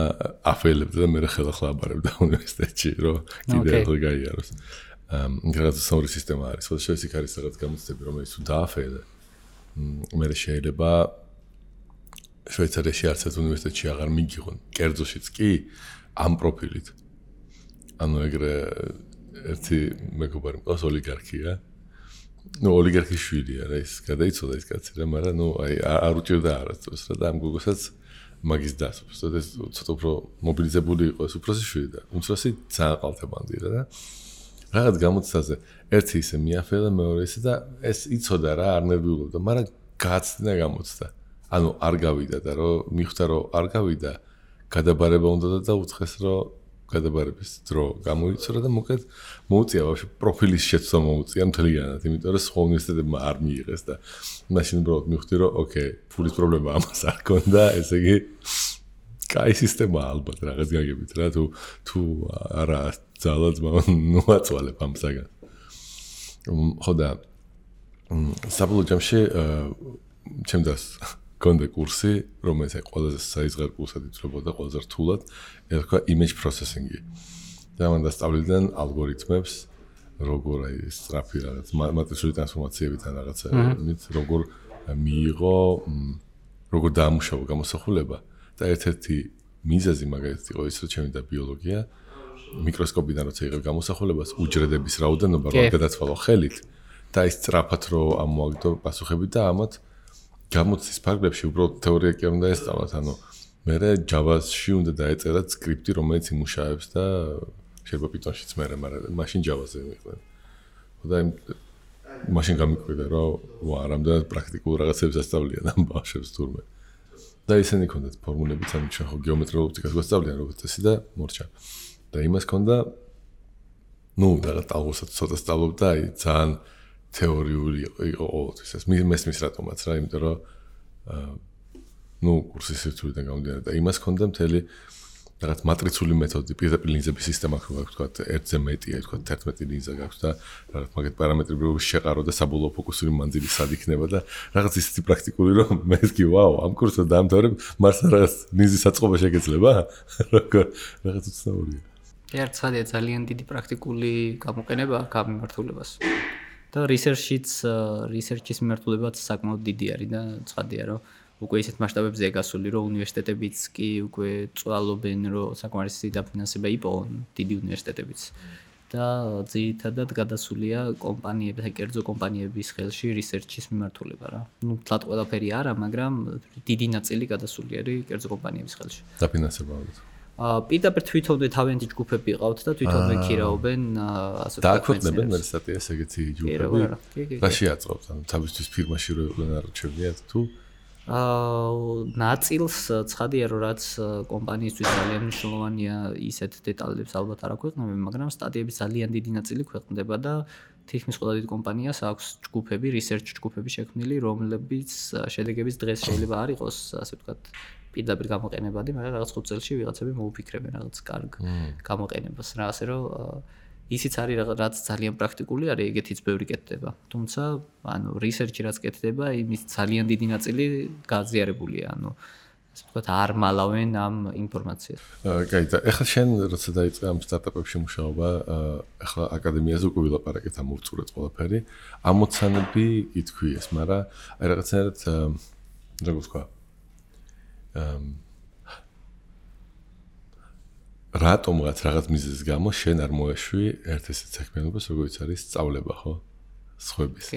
აფეილებდა და მე ხელახლა აბარებდა უნივერსიტეტში, რომ კიდე ახლა გაიაროს. რაღაც სწორი სისტემა არის, ხო შეიძლება იქ არის რაღაც გამოცდები, რომელიც თუ დააფეილე, მე შეიძლება შვეიცარიაში არც ერთ უნივერსიტეტში აღარ მიგიღონ, კერძოშიც კი ამ პროფილით. ანუ ეგრე ერთი მეგობარი მყავს ოლიგარქია. ნუ ოლიგარქის შვილია რა, ის გადაიცოდა ის კაცი რა, მაგრამ ნუ აი არ უჭირდა არასდროს რა და ამ გოგოსაც მაგის დასვს. და ეს ცოტა უფრო მობილიზებული იყო ეს უფროსი შვილი და უმცროსი ძალიან ყალთებანდი რა და რაღაც გამოცდაზე ერთი ისე მიაფეილა, მეორე ისე და ეს იცოდა რა, არ ნერვიულობდა, მაგრამ გააცდინა გამოცდა. ანუ არ გავიდა და რომ მიხვდა რომ არ გავიდა, გადაბარება უნდა და უცხეს რომ გადაბარების დრო გამოიწურა და მოკლედ მოუწია ვაფშე პროფილის შეცვლა მოუწია მთლიანად, იმიტომ რომ სხვა უნივერსიტეტებმა არ მიიღეს და მაშინ უბრალოდ მიხვდი რომ ოკეი, ფულის პრობლემა ამას არ ქონდა, ესე იგი კაი სისტემა ალბათ რაღაც გაგებით რა, თუ არა ძალად მოაწვალებ ამ საგანს. ხო და საბოლოო ჯამში ჩემს კონდა კურსი, რომელიც აი ყველაზე საიზღარ კურსად ითვლებოდა, ყველაზე რთულად, ერქვა image processing-ი. და მან დასწავლიდან ალგორითმებს, როგორ აი სწრაფი რაღაც მატრიცული ტრანსფორმაციებიდან რაღაცებით, როგორ მიიღო, როგორ დაამუშავა გამოსახულება და ერთ-ერთი მიზეზი მაგალითად იყო ის, რომ ჩემი და ბიოლოგია მიკროსკოპიდან როცა იღებ გამოსახულებას, უჯრედების რაოდენობა რო გადაცვალო ხელით და ის სწრაფად რო ამოაგდო პასუხები და ამათ გამოცდის ფარგლებში უბრალოდ თეორია კი არ უნდა ესწავლათ, ანუ მერე Java-ში უნდა დაეწერათ სკრიპტი, რომელიც იმუშავებს და შეიძლება Python-შიც მერე, მაგრამ მაშინ Java-ზე მიყვნენ. და მაშინ გამიკვირდა, რომ ვა, რამდენად პრაქტიკულ რაღაცებს ასწავლიან ამ ბავშვებს თურმე. და ისინი ქონდათ ფორმულებიც, ანუ ჩვენ ხო გეომეტრიულ ოპტიკას გვასწავლიან როგორც წესი და მორჩა. და იმას ქონდა, ნუ რაღაც ალბათ ცოტა სწავლობდა, აი ძალიან თეორიული იყო ყოველთვის ეს მესმის რატომაც რა, იმიტომ რომ ნუ კურსის სირთულიდან გამომდინარე და იმას ქონდა მთელი რაღაც მატრიცული მეთოდი, პირდაპირ ლინზების სისტემა გვაქვს, თქვა 1-ზე მეტია, თქვა 11 ლინზა გაქვს და რაღაც მაგეთ პარამეტრები შეყარო და საბოლოო ფოკუსური მანძილი სად იქნება და რაღაც ისეთი პრაქტიკული რომ მე ვთქვი, ვაუ, ამ კურსს დაამთავრებ, მარსა რაღაც ლინზის საწყობა შეგეძლება? რაღაც უცნაურია. ერთადია ძალიან დიდი პრაქტიკული გამოყენება აქ ამ მიმართულებას. და research-ის მიმართულებაც საკმაოდ დიდი არის და ცხადია რომ უკვე ისეთ მასშტაბებზეა გასული რომ უნივერსიტეტებიც კი უკვე წვალობენ რომ საკმარისი დაფინანსება იპოვონ დიდი უნივერსიტეტებიც და ძირითადად გადასულია კომპანიების, კერძო კომპანიების ხელში research-ის მიმართულება რა. ნუ თლად ყველაფერი არა, მაგრამ დიდი ნაწილი გადასული არის კერძო კომპანიების ხელში. დაფინანსება ალბათ. პირდაპირ თვითონვე თავიანთი ჯგუფები ყავთ და თვითონვე ქირავენ ასე ვთქვათ. დააქვეყნებენ მე სტატიას ეგეთი ჯგუფები. რა შეაწყობთ? ანუ თავისთვის ფირმაში რო იყვნენ არჩევიათ თუ ნაწილს ცხადია რომ რაც კომპანიისთვის ძალიან მნიშვნელოვანია, ისეთ დეტალებს ალბათ არ აქვეყნებენ, მაგრამ სტატიების ძალიან დიდი ნაწილი ქვეყნდება და თითქმის ყველა დიდ კომპანიას აქვს ჯგუფები, research ჯგუფები შექმნილი, რომლებიც შედეგების დღეს შეიძლება არ იყოს, ასე ვთქვათ, პირდაპირ გამოყენებადი, მაგრამ რაღაც 5 წელში ვიღაცები მოუფიქრებენ რაღაც კარგ გამოყენებას რა, ასე რომ ისიც არის რაც ძალიან პრაქტიკული არის, ეგეთიც ბევრი კეთდება. თუმცა, ანუ research-ი რაც კეთდება, იმის ძალიან დიდი ნაწილი გააზიარებულია, ანუ ვთქვათ, არ მალავენ ამ ინფორმაციას. კაი, და ეხლა შენ როცა დაიწყე ამ სტარტაპებში მუშაობა, ეხლა აკადემიაზე უკვე ვილაპარაკეთ ამ ურწურეთ ყველაფერი. ამოცანები ითქვიეს, მაგრამ აი რაღაცნაირად როგორ ვთქვა? რატომღაც რაღაც მიზეზის გამო შენ არ მოეშვი ერთ ესეთ საქმიანობას, როგორც არის სწავლება, ხო? სხვების.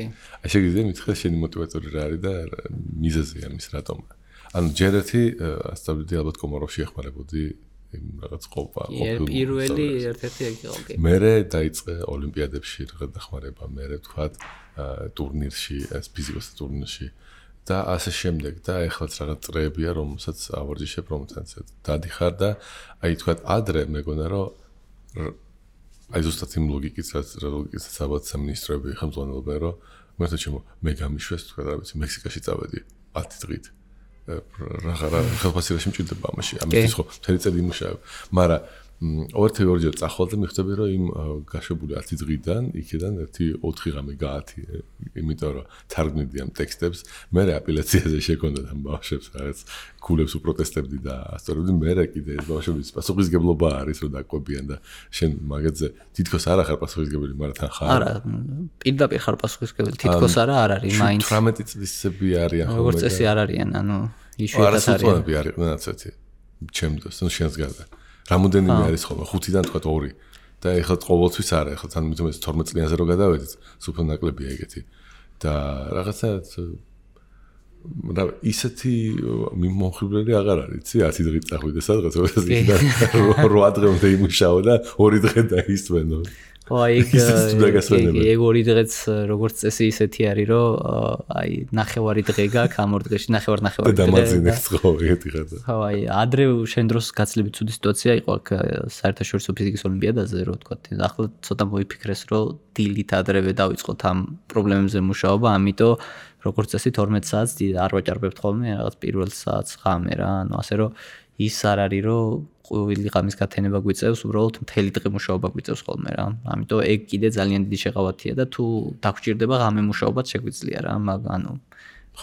აი შეგიძლია მითხრა შენი мотиваტორი რა არის და მიზეზი ამის რატომ? ანუ ჯერ ერთი ასწავლიდი ალბათ კომოროვში ეხმარებოდი იმ რაღაც ყოფილ პირველი ერთ-ერთი ეგ იყო. მერე დაიწყე ოლიმპიადებში რაღაც დახმარება, მერე ვთქვათ ტურნირში, ფიზიკოსთა ტურნირში და ასე შემდეგ და ეხლაც რაღაც წრეებია, რომელსაც ავარჯიშებ, რომელსაც დადიხარ და აი ვთქვათ ადრე მეგონა რომ აი ზუსტად იმ ლოგიკითაც ალბათ სამინისტროები ხელმძღვანელობენ რომ მე გამიშვეს ვთქვათ რა ვიცი მექსიკაში წავედი 10 დღით რა ხელფასილაში მჭირდება ამაში ამისთვის ხო მთელი წელი იმუშავებ მაგრამ ორჯერ წახვალ და მიხვდები რომ იმ გაშვებული 10 დღიდან იქიდან 1-4 ღამე გაათი იმიტომ რომ თარგმნიდი ამ ტექსტებს მე აპელაციაზე შეკონდა ამ ბავშვებს რაღაც ქულებს უპროტესტებდი და ასწორებდი მე კიდე ეს ბავშვების პასუხისგებლობა არის რომ დაკვებიან და შენ მაგაზე თითქოს არ ახარ პასუხისგებელი მაგრამ თან ხარ არა პირდაპირ ხარ პასუხისგებელი თითქოს არა არ არის მაინც 18 წლისები არიან ხოლმე როგორც წესი არ არიან ანუ იშვიათად არიან არიან ასეთი ჩემთვის ნუ შენს გარდა რამოდენიმე არის ხოლმე 5-დან თქვა 2 და ეხლა ყოველთვის არა ეხლა თან მithom 12 წლიანზე რო გადავედით სუფო ნაკლებია ეგეთი და რაღაცა რა ისეთი მიმოხილველი აღარ არის იცი 10 დღით წახვიდე სადღაც 8 დღემდე იმუშაო და 2 დღე დაისვენო აი ეგ 2 დღეც როგორც წესი ისეთი არის რომ აი ნახევარი დღე გაქვს ამ 2 დღეში ნახევარი და დამაძინეს ხო ეგეთი ხარ ხო აი ადრე შენ დროს გაცილებით ცუდი სიტუაცია იყო აქ საერთაშორისო ფიზიკის ოლიმპიადაზე რო ვთქვათ ახლა ცოტა მოიფიქრეს რომ დილით ადრევე დავიწყოთ ამ პრობლემებზე მუშაობა ამიტომ როგორც წესი 12 საათს არ ვაჭარბებთ ხოლმე რაღაც პირველ საათს ღამე რა ანუ ასე რომ ის არ არის რომ ყოველი ღამის გათენება გვიწევს უბრალოდ მთელი დღე მუშაობა გვიწევს ხოლმე რა ამიტომ ეგ კიდე ძალიან დიდი შეღავათია და თუ დაგჭირდება ღამე მუშაობაც შეგვიძლია რა ანუ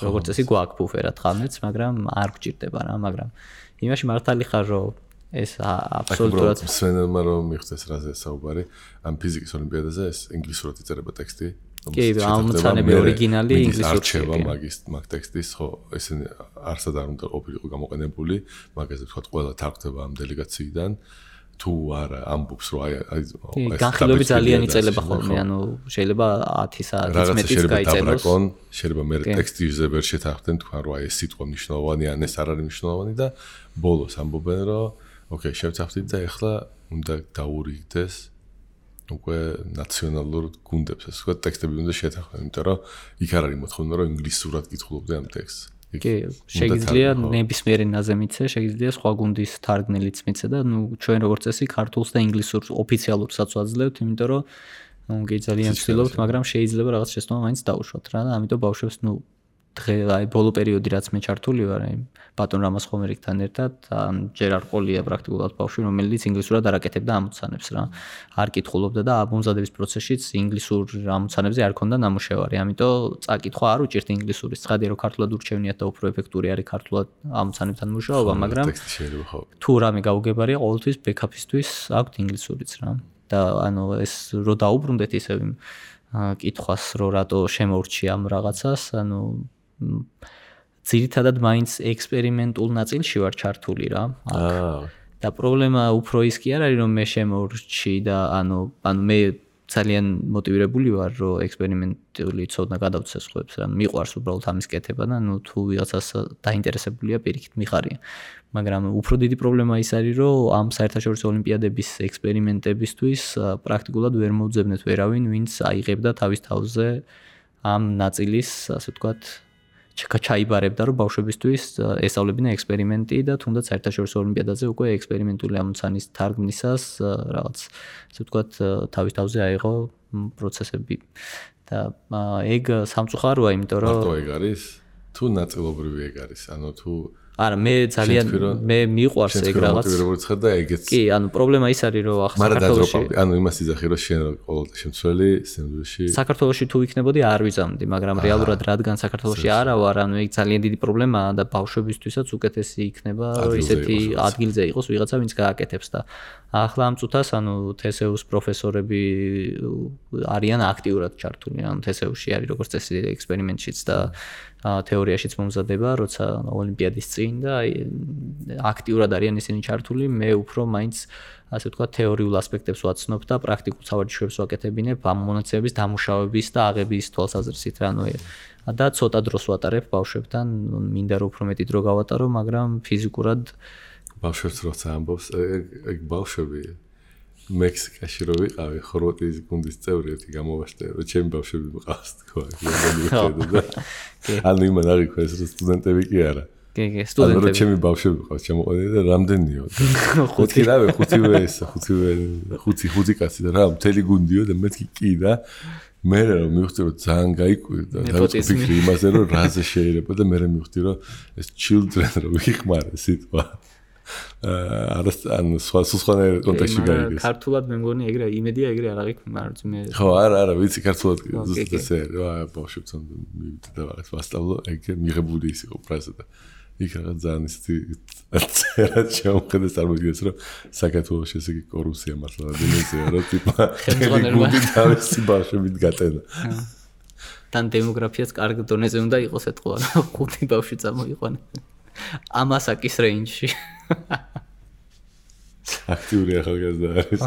როგორც წესი გვაქვს ბუფერად ღამეც მაგრამ არ გვჭირდება რა მაგრამ იმაში მართალი ხარ რომ ეს აბსოლუტურად სვენელმა რომ მიხდეს რაზე საუბარი ამ ფიზიკის ოლიმპიადაზე ეს ინგლისურად იწერება ტექსტი კი, ამოცანები ორიგინალი ინგლისურში. არჩევა მაგ ტექსტის, ხო, ესენი არსად არ უნდა ყოფილიყო გამოყენებული, მაგაზე თქვა ყველა თარგდება ამ დელეგაციიდან. თუ არა ამბობს რომ აი განხილვები ძალიან იწელება ხოლმე, ანუ შეიძლება 10 საათის მეტიც გაიწელოს. შეიძლება მე ტექსტზე ვერ შეთანხმდნენ თქვა რომ აი ეს სიტყვა მნიშვნელოვანი ან ეს არ არის მნიშვნელოვანი და ბოლოს ამბობენ რომ ოკეი, შევცახდით და ეხლა უნდა დაურიგდეს უკვე ნაციონალურ გუნდებს ასე ვთქვათ ტექსტები უნდა შეთანხმდნენ, იმიტომ რომ იქ არ არის მოთხოვნა რომ ინგლისურად კითხულობდე ამ ტექსტს. კი, შეიძლება ნებისმიერი ენაზე მიცე, შეიძლება სხვა გუნდის თარგმნელიც მიცე და ნუ ჩვენ როგორც წესი ქართულს და ინგლისურს ოფიციალურსაც ვაძლევთ, იმიტომ რომ ნუ კი ძალიან ვცდილობთ, მაგრამ შეიძლება რაღაც შეცდომა მაინც დაუშვათ რა და ამიტომ ბავშვებს ნუ დღე აი ბოლო პერიოდი რაც მე ჩართული ვარ, აი ბატონ რამაზ ხომერიკთან ერთად, ჯერ არ ყოლია პრაქტიკულად ბავშვი, რომელიც ინგლისურად არაკეთებდა ამოცანებს რა. არ კითხულობდა და ამომზადების პროცესშიც ინგლისურ ამოცანებზე არ ქონდა ნამუშევარი. ამიტომ წაკითხვა არ უჭირთ ინგლისურის. ცხადია რომ ქართულად ურჩევნიათ და უფრო ეფექტური არის ქართულად ამოცანებთან მუშაობა, მაგრამ თუ რამე გაუგებარია, ყოველთვის ბექაპისთვის აქვთ ინგლისურიც რა. და ანუ ეს რო დაუბრუნდეთ ისე კითხვას, რომ რატო შემოურჩი ამ რაღაცას, ანუ ძირითადად მაინც ექსპერიმენტულ ნაწილში ვარ ჩართული რა. და პრობლემა უფრო ის კი არ არის რომ მე შემოურჩი და ანუ მე ძალიან მოტივირებული ვარ რომ ექსპერიმენტული ცოდნა გადავცე სხვებს რა. მიყვარს უბრალოდ ამის კეთება და ნუ თუ ვიღაცას დაინტერესებულია პირიქით მიხარია. მაგრამ უფრო დიდი პრობლემა ის არის რომ ამ საერთაშორისო ოლიმპიადების ექსპერიმენტებისთვის პრაქტიკულად ვერ მოუძებნეთ ვერავინ ვინც აიღებდა თავის თავზე ამ ნაწილის ასე ვთქვათ ჩაიბარებდა რომ ბავშვებისთვის ესწავლებინა ექსპერიმენტი და თუნდაც საერთაშორისო ოლიმპიადაზე უკვე ექსპერიმენტული ამოცანის თარგმნისას რაღაც ასე ვთქვათ თავის თავზე აიღო პროცესები და ეგ სამწუხაროა იმიტომ რომ მარტო ეგ არის თუ ნაწილობრივი ეგ არის ანუ თუ არა მე ძალიან მე მიყვარს ეგ რაღაც მოტივირებული ხარ და ეგეც კი ანუ პრობლემა ის არის რომ ახლა საქართველოში ანუ იმას იძახი რომ შენ ყოველთვის შემცველი სინამდვილეში საქართველოში თუ იქნებოდი არ ვიზამდი მაგრამ რეალურად რადგან საქართველოში არა ვარ ანუ ეგ ძალიან დიდი პრობლემაა და ბავშვებისთვისაც უკეთესი იქნება რომ ისეთი ადგილზე იყოს ვიღაცა ვინც გააკეთებს და ახლა ამ წუთას ანუ TSU-ს პროფესორები არიან აქტიურად ჩართული ანუ TSU-ში არის როგორც წესი ექსპერიმენტშიც და თეორიაშიც მომზადება როცა ოლიმპიადის წინ და აქტიურად არიან ისინი ჩართული მე უფრო მაინც ასე ვთქვათ თეორიულ ასპექტებს ვაცნობ და პრაქტიკულ სავარჯიშოებს ვაკეთებინებ ამ მონაცემების დამუშავების და აღების თვალსაზრისით რა და ცოტა დროს ვატარებ ბავშვებთან მინდა რომ უფრო მეტი დრო გავატარო მაგრამ ფიზიკურად ბავშვებს როცა ამბობს ეგ ბავშვები მექსიკაში რო ვიყავი ხორვატიის გუნდის წევრი ერთი გამოვაშტერე რომ ჩემი ბავშვები მყავს თქო ანუ იმან არ იქვა ეს რომ სტუდენტები კი არა კი სტუდენტები ანუ ჩემი ბავშვები მყავს ჩამოყვანილი და რამდენიო ხუთი კაცი და რა მთელი გუნდიო და მეთქი კი და მე რომ მივხვდი რომ ძალიან გაიკვირდა და ვფიქრი იმაზე რომ რაზე შეიძლება და მე მივხვდი რომ ეს children რო ვიხმარე სიტყვა ანუ სხვა კონტექსტში გაიგეს. ქართულად მე მგონი ეგრე იმედია ეგრე არ აღიქვ მაგრამ მე ხო არა ვიცი ქართულად ზუსტად ესე ბავშვებთან მივიდე და რაღაც ვასწავლო ეგ მიღებული ის იყო ფრაზა და იქ რაღაც ძალიან ისეთი წერა შემოხედეს წარმოგიდგენს რომ საქართველოში ესე იგი კორუფცია მართლა დემონსტრაცია რა ტიპა გუნდი თავისი ბავშვებით გატენა. თან დემოგრაფიაც კარგ დონეზე უნდა იყოს ეთქვა ხუთი ბავშვი წამოიყვანა. ამასაკის რეინჯში. აქტიური ახალგაზრდა არის.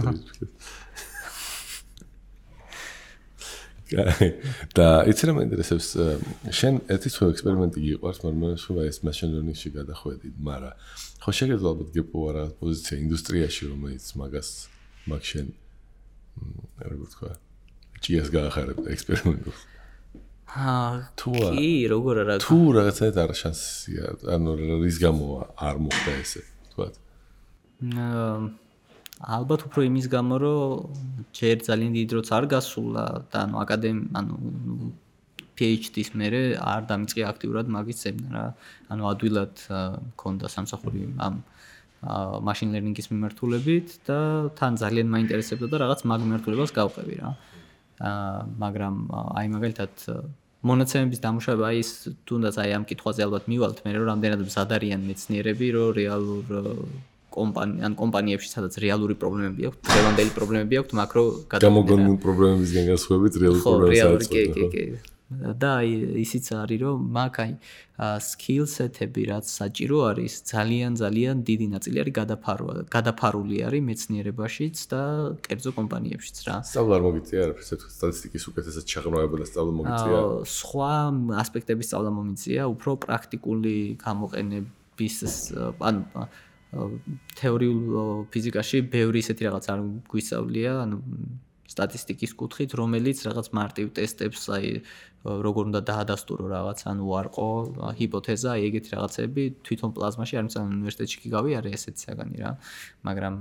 და იცი რა მაინტერესებს შენ ერთი სხვა ექსპერიმენტი გიყვარს მაგრამ სხვა ეს machine learning-ში გადახვედი მაგრამ ხო შეგეძლო ალბათ გეპო რა პოზიცია ინდუსტრიაში რომელიც მაგას მაგ შენ როგორ თქვა ჭიას გაახარებ ექსპერიმენტებს კი როგორ არა თუ რაღაცა არ შანსია ანუ რის გამო არ მოხდა ესე თქვა ალბათ უფრო იმის გამო რომ ჯერ ძალიან დიდი დროც არ გასულა და ანუ PhD-ს მერე არ დამიწყე აქტიურად მაგის ზემნა რა ანუ ადვილად მქონდა სამსახური ამ machine learning-ის მიმართულებით და თან ძალიან მაინტერესებდა და რაღაც მაგ მიმართულებას გავყევი რა მაგრამ აი მაგალითად მონაცემების დამუშავება აი ის თუნდაც აი ამ კითხვაზე ალბათ მივალთ მე რომ რამდენად მზად არიან მეცნიერები რომ რეალურ კომპანიებში სადაც რეალური პრობლემები აქვს, დღევანდელი პრობლემები აქვს, მაკრო გამოგონილ პრობლემებისგან განსხვავებით რეალური პრობლემებსაც კი. და ისიც არის რომ მაგ აი skill set-ები რაც საჭირო არის, ძალიან დიდი ნაწილი არის გადაფარული არის მეცნიერებაშიც და კერძო კომპანიებშიც რა. სწავლა არ მოგიწია არაფერს ეს სტატისტიკის უკეთესად ჩაღრმავება და სწავლა მოგიწია. სხვა ასპექტების სწავლა მომიწია, უფრო პრაქტიკული გამოყენების ანუ თეორიულ ფიზიკაში ბევრი ისეთი რაღაც არ გვისწავლია, ანუ სტატისტიკის კუთხით, რომელიც რაღაც მარტივ ტესტებს, აი როგორ უნდა დაადასტურო რაღაც, ანუ უარყო, ჰიპოთეზა, ეგეთი რაღაცები თვითონ პლაზმაში არ მიცან უნივერსიტეტში კი გავიარე ესეთი საგანი რა, მაგრამ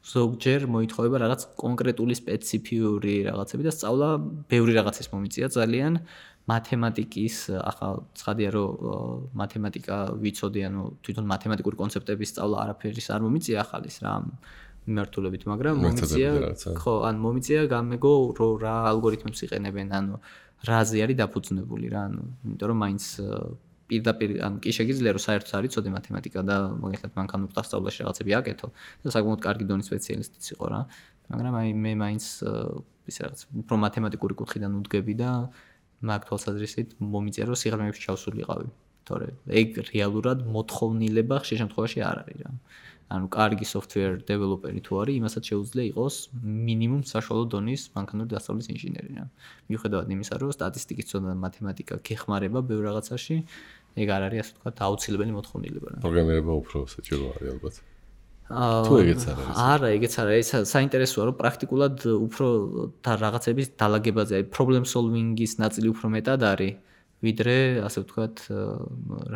ზოგჯერ მოითხოვება რაღაც კონკრეტული სპეციფიური რაღაცები და სწავლა ბევრი რაღაცის მომიწია ძალიან მათემატიკის ახლა ცხადია რომ მათემატიკა ვიცოდი ანუ თვითონ მათემატიკური კონცეპტების სწავლა არაფერის არ მომიწია ახალის რა მიმართულებით მაგრამ მომიწია ხო ან მომიწია გამეგო რომ რა ალგორითმებს იყენებენ ანუ რაზე არის დაფუძნებული რა ანუ იმიტომ რომ მაინც პირდაპირ ან კი შეგიძლია რომ საერთოდ არ იცოდე მათემატიკა და მაგალითად მანქანურ დასწავლაში რაღაცები აკეთო და საკმაოდ კარგი დონის სპეციალისტიც იყო რა მაგრამ აი მე მაინც ის რაღაც უფრო მათემატიკური კუთხიდან უდგები და მაგ თვალსაზრისით მომიწია რომ სიღრმეებში ჩავსულიყავი თორე ეგ რეალურად მოთხოვნილება ხშირ შემთხვევაში არ არის რა ანუ კარგი software developer-ი თუ არის იმასაც შეუძლია იყოს მინიმუმ საშუალო დონის მანქანური დასწავლის ინჟინერი რა მიუხედავად იმისა რომ სტატისტიკის ცოდნა და მათემატიკა გეხმარება ბევრ რაღაცაში ეგ არ არის ასე ვთქვათ აუცილებელი მოთხოვნილება რა პროგრამირება უფრო საჭირო არის ალბათ თუ ეგეც არ არის არა ეგეც არ არის საინტერესოა რომ პრაქტიკულად უფრო და რაღაცების დალაგებაზე აი problem solving-ის ნაწილი უფრო მეტად არის ვიდრე ასე ვთქვათ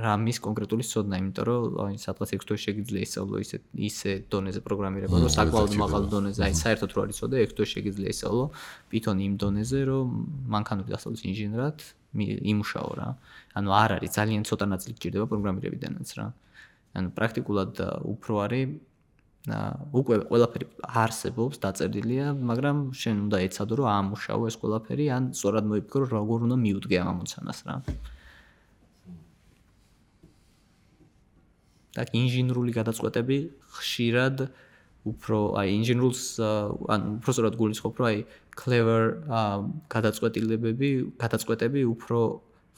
რამის კონკრეტული ცოდნა იმიტომ რომ აი სადღაც 6 თვეში შეგიძლია ისწავლო ისე დონეზე პროგრამირება რომ საკმაოდ მაღალ დონეზე აი საერთოდ რო არ იცოდე 6 თვეში შეგიძლია ისწავლო Python იმ დონეზე რომ მანქანური დასწავლის ინჟინერად იმუშაო რა. ანუ არ არის ძალიან ცოტა ნაწილი გჭირდება პროგრამირებიდანაც რა. ანუ პრაქტიკულად უფრო არის უკვე ყველაფერი არსებობს, დაწერილია, მაგრამ შენ უნდა ეცადო რომ ამუშავო ეს ყველაფერი, ან სწორად მოიფიქრო როგორ უნდა მიუდგე ამ ამოცანას რა. და ინჟინერული გადაწყვეტები ხშირად უფრო ინჟინერულს უფრო სწორად გულისხმობ რომ clever გადაწყვეტები უფრო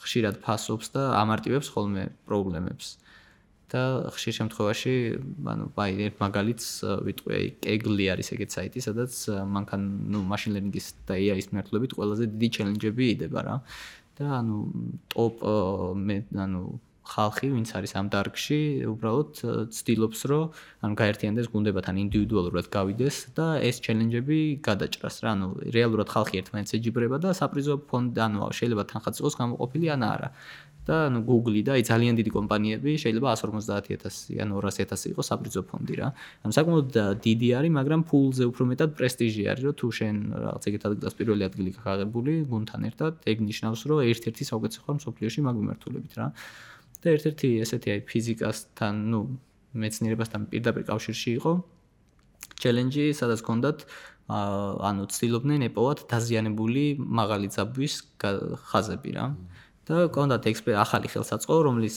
ხშირად ფასობს და ამარტივებს ხოლმე პრობლემებს. და ხშირ შემთხვევაში ერთ მაგალითს ვიტყვი Kaggle არის ეგეთ საიტი, სადაც მანქან machine learning-ის და AI-ის მიმართულებით ყველაზე დიდი ჩელენჯები იდება რა. და ტოპ ხალხი, ვინც არის ამ დარგში, უბრალოდ ცდილობს, რომ გაერთიანდეს გუნდებთან ინდივიდუალურად გავიდეს და ეს ჩელენჯები გადაჭრას რა. რეალურად ხალხი ერთმანეთს ეჯიბრება და საპრიზო ფონდი, შეიძლება თანხაც იყოს გამოყოფილი ან არა. და Google და ძალიან დიდი კომპანიები შეიძლება 150,000 ან 200,000 იყოს საპრიზო ფონდი რა. საკმაოდ დიდი არის, მაგრამ ფულზე უფრო მეტად პრესტიჟი არის, რომ თუ შენ რაღაც ეგეთ ადგილას პირველი ადგილი გაღებული გუნდთან ერთად, ეგ ნიშნავს, რომ ერთ-ერთი საუკეთესო ხარ მსოფლიოში მაგ მიმართულებით რა. და ერთ-ერთი ესეთი ფიზიკასთან, მეცნიერებასთან პირდაპირ კავშირში იყო ჩელენჯი, სადაც ჰქონდათ ცდილობდნენ ეპოვათ დაზიანებული მაღალი ძაბვის ხაზები რა. და ჰქონდათ ახალი ხელსაწყო, რომელიც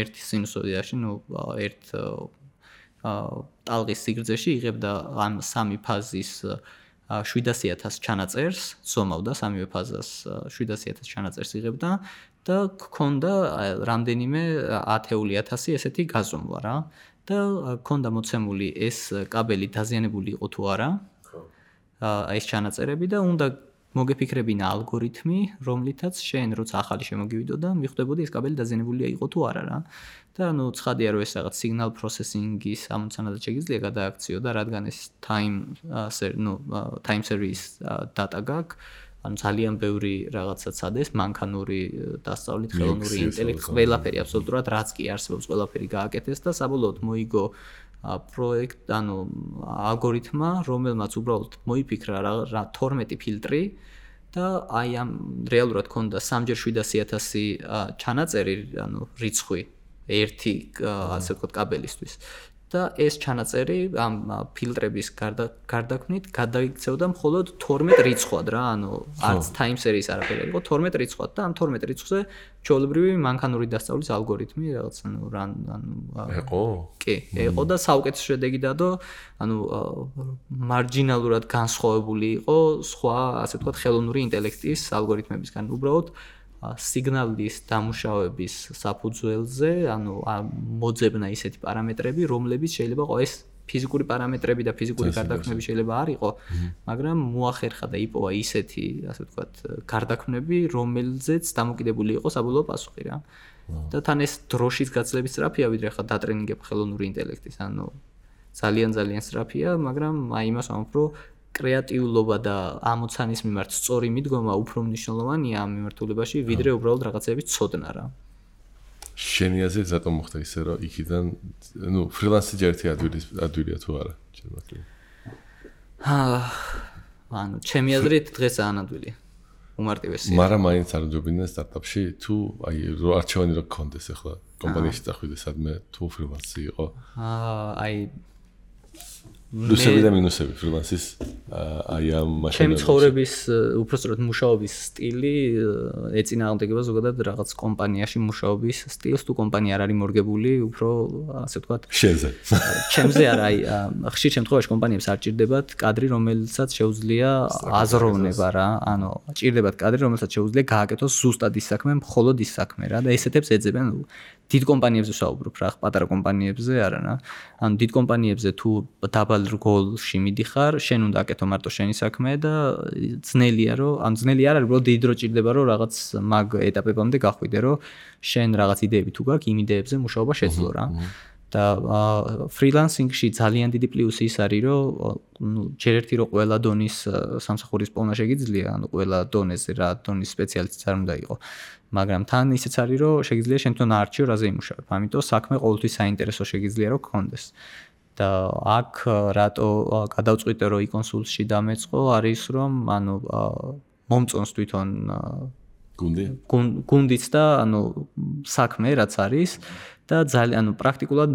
ერთ სინუსოიდაში, ერთ ტალღის სიგრძეში იღებდა ამ სამი ფაზის 700,000 ჩანაწერს, ზომავდა სამივე ფაზას 700,000 ჩანაწერს იღებდა და ჰქონდა რამდენიმე 10,000 ესეთი გაზომვა რა. და ჰქონდა მოცემული ეს კაბელი დაზიანებული იყო თუ არა. ეს ჩანაწერები და უნდა მოგეფიქრებინა ალგორითმი, რომლითაც შენ როცა ახალი შემოგივიდო და მიხვდებოდი ეს კაბელი დაზიანებულია იყო თუ არა რა. და ცხადია რომ ეს რაღაც signal processing-ის ამოცანადაც შეგიძლია გადააქციო და რადგან ეს time series data გაქვს, ძალიან ბევრი რაღაცა ცადეს, მანქანური დასწავლით, ხელოვნური ინტელექტი, ყველაფერი აბსოლუტურად რაც კი არსებობს, ყველაფერი გააკეთეს და საბოლოოდ მოიგო პროექტ, ალგორითმა, რომელმაც უბრალოდ მოიფიქრა რა 12 ფილტრი და ამ რეალურად ჰქონდა 3-ჯერ 700,000 ჩანაწერი, რიცხვი ერთი ასე ვთქვათ კაბელისთვის. და ეს ჩანაწერი ამ ფილტრების გარდაქმნით გადაიქცევდა მხოლოდ 12 რიცხვად რა, არც time series არაფერი იყო, 12 რიცხვად და ამ 12 რიცხვზე ჩვეულებრივი მანქანური დასწავლის ალგორითმი რაღაც იყო? კი, იყო და საუკეთესო შედეგი დადო, მარჯინალურად განსხვავებული იყო სხვა, ასე ვთქვათ, ხელოვნური ინტელექტის ალგორითმებისგან. უბრალოდ სიგნალის დამუშავების საფუძველზე, მოძებნა ისეთი პარამეტრები, რომლებიც შეიძლება ეს ფიზიკური პარამეტრები და ფიზიკური გარდაქმნები შეიძლება არ იყო, მაგრამ მოახერხა და იპოვა ისეთი, ასე ვთქვათ, გარდაქმნები, რომელზეც დამოკიდებული იყო საბოლოო პასუხი რა. და თან ეს დროშის გაცლების სწრაფია, ვიდრე ხა დატრენინგებ ხელოვნური ინტელექტის, ძალიან სწრაფია, მაგრამ იმას ვამბობ, რომ კრეატიულობა და ამოცანის მიმართ სწორი მიდგომა უფრო მნიშვნელოვანია ამ მიმართულებაში, ვიდრე უბრალოდ რაღაცების ცოდნა რა. შენი აზრით რატომ მოხდა ისე, რომ იქიდან, ფრილანსი ჯერთი ადვილია თუ არა? ჩემი აზრით დღეს ანადვილია. უმარტივესია. მაგრამ მაინც არ ჯობინდა სტარტაპში თუ არჩევანი რა გქონდეს ახლა კომპანიაში წახვიდე სადმე თუ ფრილანსი იყო? პლუსები და მინუსები ფრილანსის ამ მაშინ ჩემი ცხოვრების უბრალოდ მუშაობის სტილი ეწინააღმდეგება ზოგადად რაღაც კომპანიაში მუშაობის სტილს, თუ კომპანია არ არის მორგებული, უფრო ასე ვთქვათ შენზე. ჩემზე არა, ხშირ შემთხვევაში კომპანიებს არ ჭირდებათ კადრი, რომელსაც შეუძლია აზროვნება რა, ჭირდებათ კადრი, რომელსაც შეუძლია გააკეთოს ზუსტად ის საქმე, მხოლოდ ის საქმე რა და ესეთებს ეძებენ დიდ კომპანიებზე ვსაუბრობ რა, პატარა კომპანიებზე არა რა. დიდ კომპანიებზე თუ დაბალ რგოლში მიდიხარ, შენ უნდა აკეთო მარტო შენი საქმე და ძნელია რომ ძნელი არ არის, უბრალოდ დიდი დრო ჭირდება რომ რაღაც მაგ ეტაპებამდე გახვიდე, რომ შენ რაღაც იდეები თუ გაქვს, იმ იდეებზე მუშაობა შეძლო რა. და ფრილანსინგში ძალიან დიდი პლუსი ის არის, რომ ჯერ ერთი რომ ყველა დონის სამსახურის პოვნა შეგიძლია, ყველა დონეზე რა დონის სპეციალისტიც არ უნდა იყოს. მაგრამ თან ისეც არის, რომ შეგიძლია შენ თვითონ არჩიო რაზე იმუშავებ. ამიტომ საქმე ყოველთვის საინტერესო შეგიძლია რომ გქონდეს. და აქ რატო გადავწყვიტე რომ იკონსულში დამეწყო არის რომ მომწონს თვითონ გუნდიც და ანუ საქმე რაც არის და ძალიან ანუ პრაქტიკულად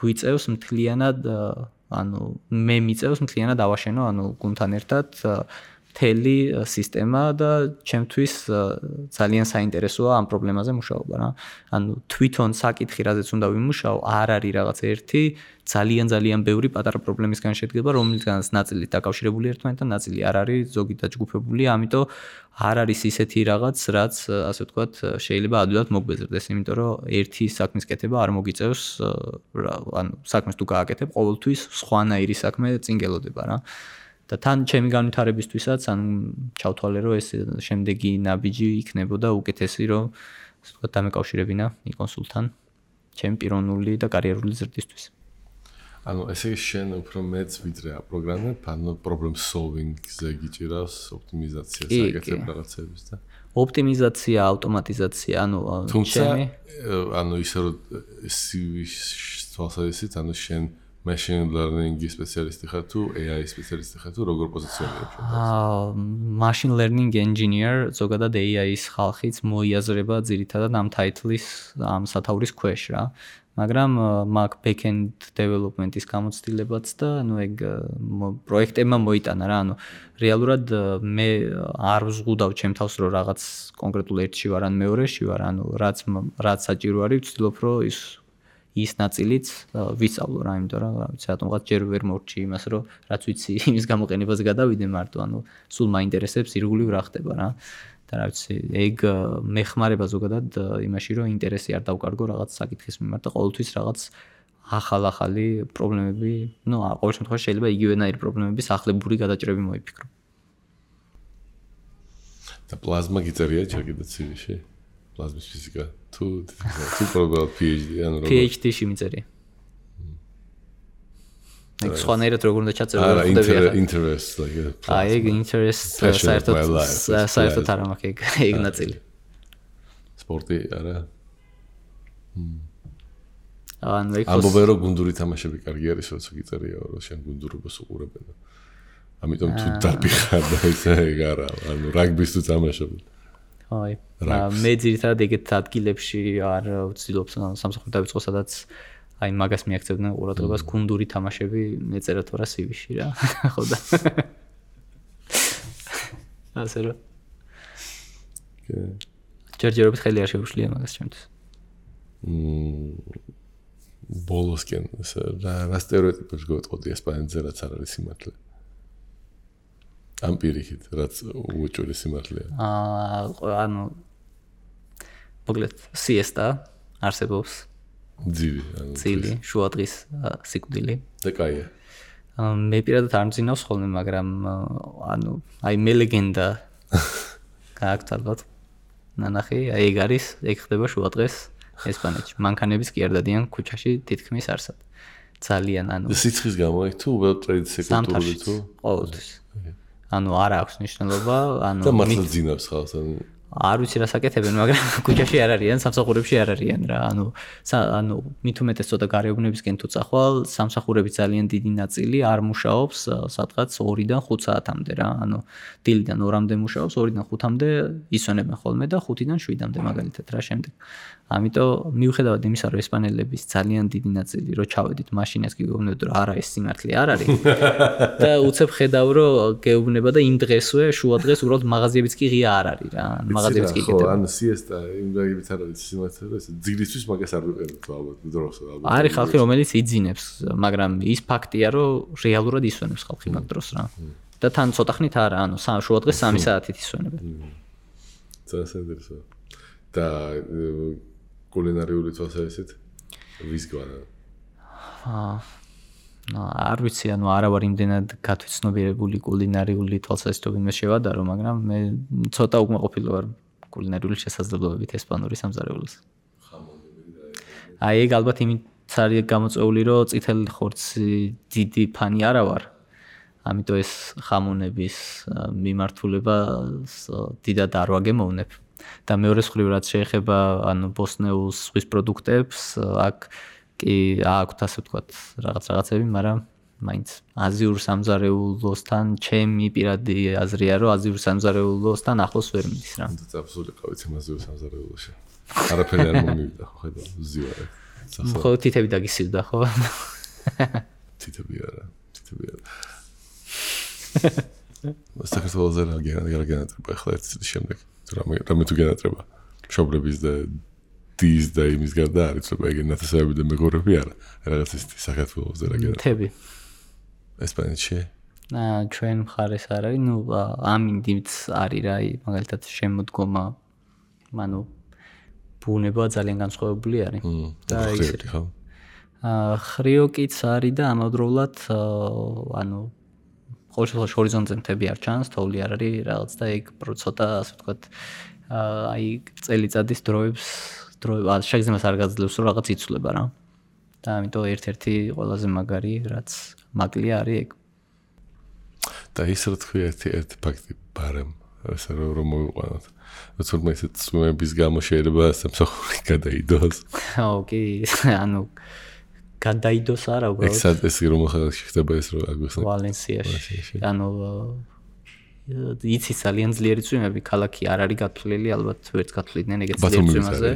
გვიწევს მთლიანად ანუ მე მიწევს მთლიანად დავაშენო ანუ გუნდთან ერთად მთელი სისტემა და ჩემთვის ძალიან საინტერესოა ამ პრობლემაზე მუშაობა რა. ანუ თვითონ საკითხი რაზეც უნდა ვიმუშაო, არ არის რაღაც ერთი ძალიან ბევრი პატარა პრობლემისგან შედგება, რომლისგანაც ნაწილი დაკავშირებული ერთმანეთთან, ნაწილი არ არის, ზოგი დაჯგუფებული, ამიტომ არ არის ისეთი რაღაც, რაც ასე ვთქვათ, შეიძლება ადვილად მოგვეზრდეს, იმიტომ რომ ერთი საქმის კეთება არ მოგიწევს, ანუ საქმეს თუ გააკეთებ, ყოველთვის სხვანაირი საქმე წინ გელოდება რა. და თან ჩემი განვითარებისთვისაც ანუ ჩავთვალე რომ ეს შემდეგი ნაბიჯი იქნებოდა უკეთესი რომ ასე ვთქვათ დამეკავშირებინა იკონსულთან ჩემი პიროვნული და კარიერული ზრდისთვის. ანუ ესე იგი შენ უფრო მეც ვიდრე აპროგრამებ, ანუ problem solving-ზე გიჭირავს ოპტიმიზაცია საკეთებ რაღაცების და ოპტიმიზაცია, ავტომატიზაცია, ანუ ჩემი ანუ ისე რომ CV-ს თვალსაზრისით ანუ შენ machine learning-ის სპეციალისტი ხარ თუ AI სპეციალისტი ხარ თუ როგორ პოზიციონირებ შენ? Machine learning engineer, ზოგადად AI-ის ხალხიც მოიაზრება ძირითადად ამ ტაიტლის, ამ სათაურის ქვეშ რა. მაგრამ მაგ back-end development-ის გამოცდილებაც და ანუ ეგ პროექტებმა მოიტანა რა, ანუ რეალურად მე არ ვზღუდავ ჩემ თავს რომ რაღაც კონკრეტულ ერთში ვარ ან მეორეში ვარ, ანუ რაც საჭირო არის, ვცდილობ რომ ის ნაწილიც ვისწავლო რა, იმიტომ რომ ვიცი რატომღაც ჯერ ვერ მორჩი იმას, რომ რაც ვიცი იმის გამოყენებაზე გადავიდე მარტო, ანუ სულ მაინტერესებს ირგვლივ რა ხდება რა. და რა ვიცი, ეგ მეხმარება ზოგადად იმაში, რომ ინტერესი არ დავკარგო რაღაც საკითხის მიმართ და ყოველთვის რაღაც ახალი პრობლემები, ну, ყოველ შემთხვევაში შეიძლება იგივენაირი პრობლემების ახლებური გადაჭრები მოიფიქრო. და პლაზმა გიწერია ჯერ კიდე CV-ში? პლაზმის ფიზიკა თუ პრობლემა PhD ანუ როგორ PhD-ში მიწერია. ეგ სხვანაირად როგორ უნდა ჩაწერო რა ხდება? Interest like ეგ interest საერთოდ არ მაქვს ეგ ნაწილი. სპორტი არა. ანუ ეგ ამბობენ რომ გუნდური თამაშები კარგი არის, როცა გიწერია რომ შენ გუნდურობას უყურებენ. ამიტომ თუ დაფიხარ და ესე ეგ არა, ანუ რაგბის თუ თამაშობ. აი, მე ძირითადად ეგეთ ადგილებში არ ვცდილობ სამსახური დავიწყო, სადაც აი მაგას მიაქცევდნენ ყურადღებას გუნდური თამაშები მეწერა თორა CV-ში რა. ხო და. ასე რომ. ჯერჯერობით ხელი არ შეუშლია მაგას ჩემთვის. ბოლოსკენ რა სტერეოტიპებს გეტყოდი ესპანეთზე რაც არ არის სიმართლე. ამ პირიქით, რაც უჭირი სიმართლეა. ანუ მოგლეთ siesta არსებობს. ძილი, შუადღის სიკვდილი. და კაია. მე პირადად არ მძინავს ხოლმე, მაგრამ ანუ აი მე ლეგენდა გააქვთ ალბათ. ნანახი, აი ეგ არის, ეგ ხდება შუადღეს ესპანეთში. მანქანების კი არ დადიან ქუჩაში თითქმის არსად. ძალიან ანუ სიცხის გამო იქ თუ well trade sector-ი თუ ყოველთვის. ანუ არ აქვს მნიშვნელობა, ანუ და მართლა ძინავს ხალხს, ანუ არ ვიცი რა საკეთებენ, მაგრამ ქუჩაში არ არიან, სამსახურებში არ არიან რა. ანუ მით უმეტეს ცოტა გარეუბნებისკენ თუ წახვალ, სამსახურების ძალიან დიდი ნაწილი არ მუშაობს სადღაც 2-დან 5 საათამდე რა. ანუ დილიდან 2-მდე მუშაობს, 2-დან 5-მდე ისვენებენ ხოლმე და 5-დან 7-მდე მაგალითად რა შემდეგ. ამიტომ მიუხედავად იმისა, რომ ესპანელების ძალიან დიდი ნაწილი რო ჩავედით მაშინას გიგეუბნებოდ რომ არა ეს სიმართლე არ არის. და უცებ ხედავ რომ გეუბნება და იმ დღესვე შუადღეს უბრალოდ მაღაზიებიც კი ღია არ არის რა. მაღაზიებიც კი გეტყვი. ანუ siesta იმ გაიგებით არ არის სიმართლე, რომ ეს ძილისთვის მაგას არ ვიყენებთ ალბათ დროს ალბათ. არის ხალხი რომელიც იძინებს, მაგრამ ის ფაქტია რომ რეალურად ისვენებს ხალხი მაგ დროს რა. და თან ცოტა ხნით არა, ანუ შუადღეს 3 საათით ისვენებენ. წასადერსო. და კულინარიული თვალსაზრისით ვის გვარა? არ ვიცი, ანუ არა ვარ იმდენად გათვიცნობიერებული კულინარიული თვალსაზრისით მე შევადარო, მაგრამ მე ცოტა უკმაყოფილო ვარ კულინარიული შესაძლებლობებით ესპანური სამზარეულოს. აი ეგ ალბათ იმით არის გამოწვეული, რომ წითელი ხორცი დიდი ფანი არა ვარ. ამიტომ ეს ხამონების მიმართულება დიდად არ ვაგემოვნებ. და მეორე მხრივ რაც შეეხება ანუ ბოსნეულს ზღვის პროდუქტებს, აქ კი აქვთ ასე ვთქვათ რაღაცები, მაგრამ მაინც აზიურ სამზარეულოსთან ჩემი პირადი აზრია რომ აზიურ სამზარეულოსთან ახლოს ვერ მიდის რა. აბსოლუტურად ყავით აზიურ სამზარეულოში. არაფერი არ მომივიდა ხო ხედავ ზივარი. ხო თითები დაგისივდა ხო? თითები არა. საქართველოზე რა გენატრება ახლა ერთ წლის შემდეგ. რამე თუ გენატრება. მშობლების და დის და იმის გარდა არის ცოტა ეგ ნათესავები და მეგობრები არა. რაღაც ის საქართველოზე რა გენატრება. თები. ესპანეთში? ჩვენ მხარეს არ არის, ნუ ამინდიც არის რა, მაგალითად შემოდგომა, ანუ ბუნება ძალიან განსხვავებული არის. და ისე ხო? ხრიოკიც არის და ამავდროულად ანუ ყოველ შემთხვევაში ჰორიზონტზე მთები არ ჩანს, თოვლი არ არის რაღაც და ეგ ცოტა ასე ვთქვათ აი წელიწადის დროებს შეგრძნებას არ გაძლევს რომ რაღაც იცვლება რა. და ამიტომ ერთ-ერთი ყველაზე მაგარი რაც მაგლია არის ეგ. და ის რა თქვი ერთი ფაქტი ბარემ ასე რომ მოვიყვანოთ. თუმცა ეს წვიმების გამო შეიძლება სამსახური გადაიდოს. ოკი, ანუ გადაიდოს არა უბრალოდ. ეს რომ ხდება ეს რომ აგვიხსნა. ვალენსიაში. ანუ იცი ძალიან ძლიერი წვიმები, ქალაქი არ არის გათვლილი, ალბათ ვერც გათვლიდნენ ეგეთ ძლიერ წვიმაზე.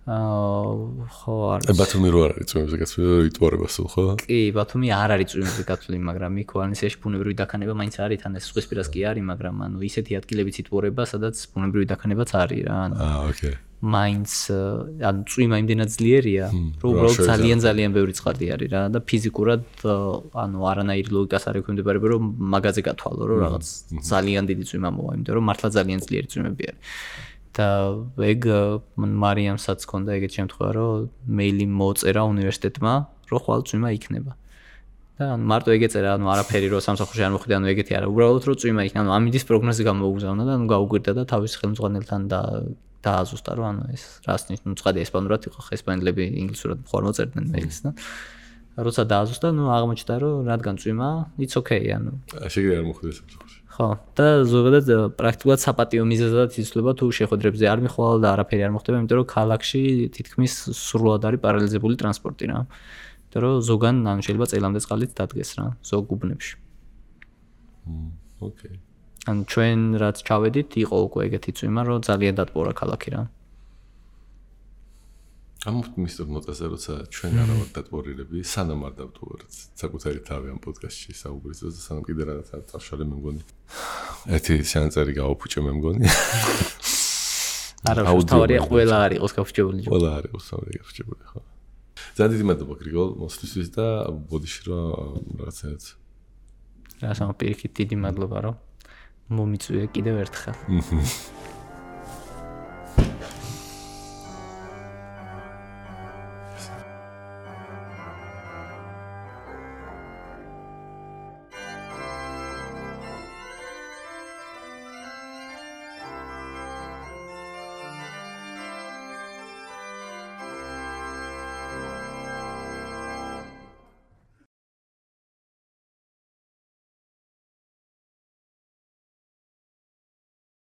ხო არის. ბათუმი რო არის წვიმებზე გათვლილი, იტუარება სულ ხო? კი, ბათუმი არ არის წვიმებზე გათვლილი, მაგრამ იქ ვალენსიაში ბუნებრივი დაქანება მაინც არის, თან ეს ზღვისპირას კი არის, მაგრამ ანუ ისეთი ადგილებიც იტუარება, სადაც ბუნებრივი დაქანებაც არის რა. ოკეი. მაინც ანუ წვიმა იმდენად ძლიერია, რომ უბრალოდ ძალიან ბევრი წყალდი არის რა და ფიზიკურად ანუ არანაირი ლოგიკას არ ექვემდებარება რომ მაგაზე გათვალო რომ რაღაც ძალიან დიდი წვიმა მოვა, იმიტომ რომ მართლა ძალიან ძლიერი წვიმები არის. და ეგ მარიამსაც ჰქონდა ეგეთ შემთხვევა რომ მეილი მოწერა უნივერსიტეტმა რომ ხვალ წვიმა იქნება. და ანუ მარტო ეგ ეწერა, ანუ არაფერი რომ სამსახურში არ მოხდა, ანუ ეგეთი არა, უბრალოდ რომ წვიმა იქნება, ანუ ამინდის პროგნოზი გამოუგზავნა და ანუ გაუგვირდა და თავის ხელმძღვანელთან დააზუსტა რომ ანუ ეს რას ნიშნავს, ცხადი ესპანურად იყო, ესპანელები ინგლისურად მხარ მოწერდნენ მეილს და როცა დააზუსტა, ნუ აღმოჩნდა რომ რადგან წვიმა, it's okay, ანუ შეგიძლია არ მოხდეს სამსახურში. ხო, და ზოგადად პრაქტიკულად საპატიო მიზეზად იცვლება თუ შეხვედრებზე არ მიხვალ და არაფერი არ მოხდება, იმიტომ რომ ქალაქში თითქმის სრულად არის პარალიზებული ტრანსპორტი რა. იმიტომ რომ ზოგან ანუ შეიძლება წელამდე წყალით დადგეს რა, ზოგ უბნებში. ოკეი. ანუ ჩვენ რაც ჩავედით, იყო უკვე ეგეთი წვიმა, რომ ძალიან დატბორა ქალაქი რა. მისტერ ნოტაზე როცა ჩვენ არა ვართ დატბორილები, სანამ არ დავტოვართ საკუთარი თავი ამ პოდკასტში საუბრის და სანამ კიდე რაღაცა დავშალე მე მგონი. ერთი სანაწერი გავაფუჭე მე მგონი. არა, თავარია ყველა არ იყოს გაფუჭებული. ყველა არ იყოს თავი გაფუჭებული ხო. ძალიან დიდი მადლობა გრიგოლ მოსვლისთვის და ბოდიში რომ რაღაცააც. რა სამო პირიქით დიდი მადლობა რომ მომიწვია კიდევ ერთხელ.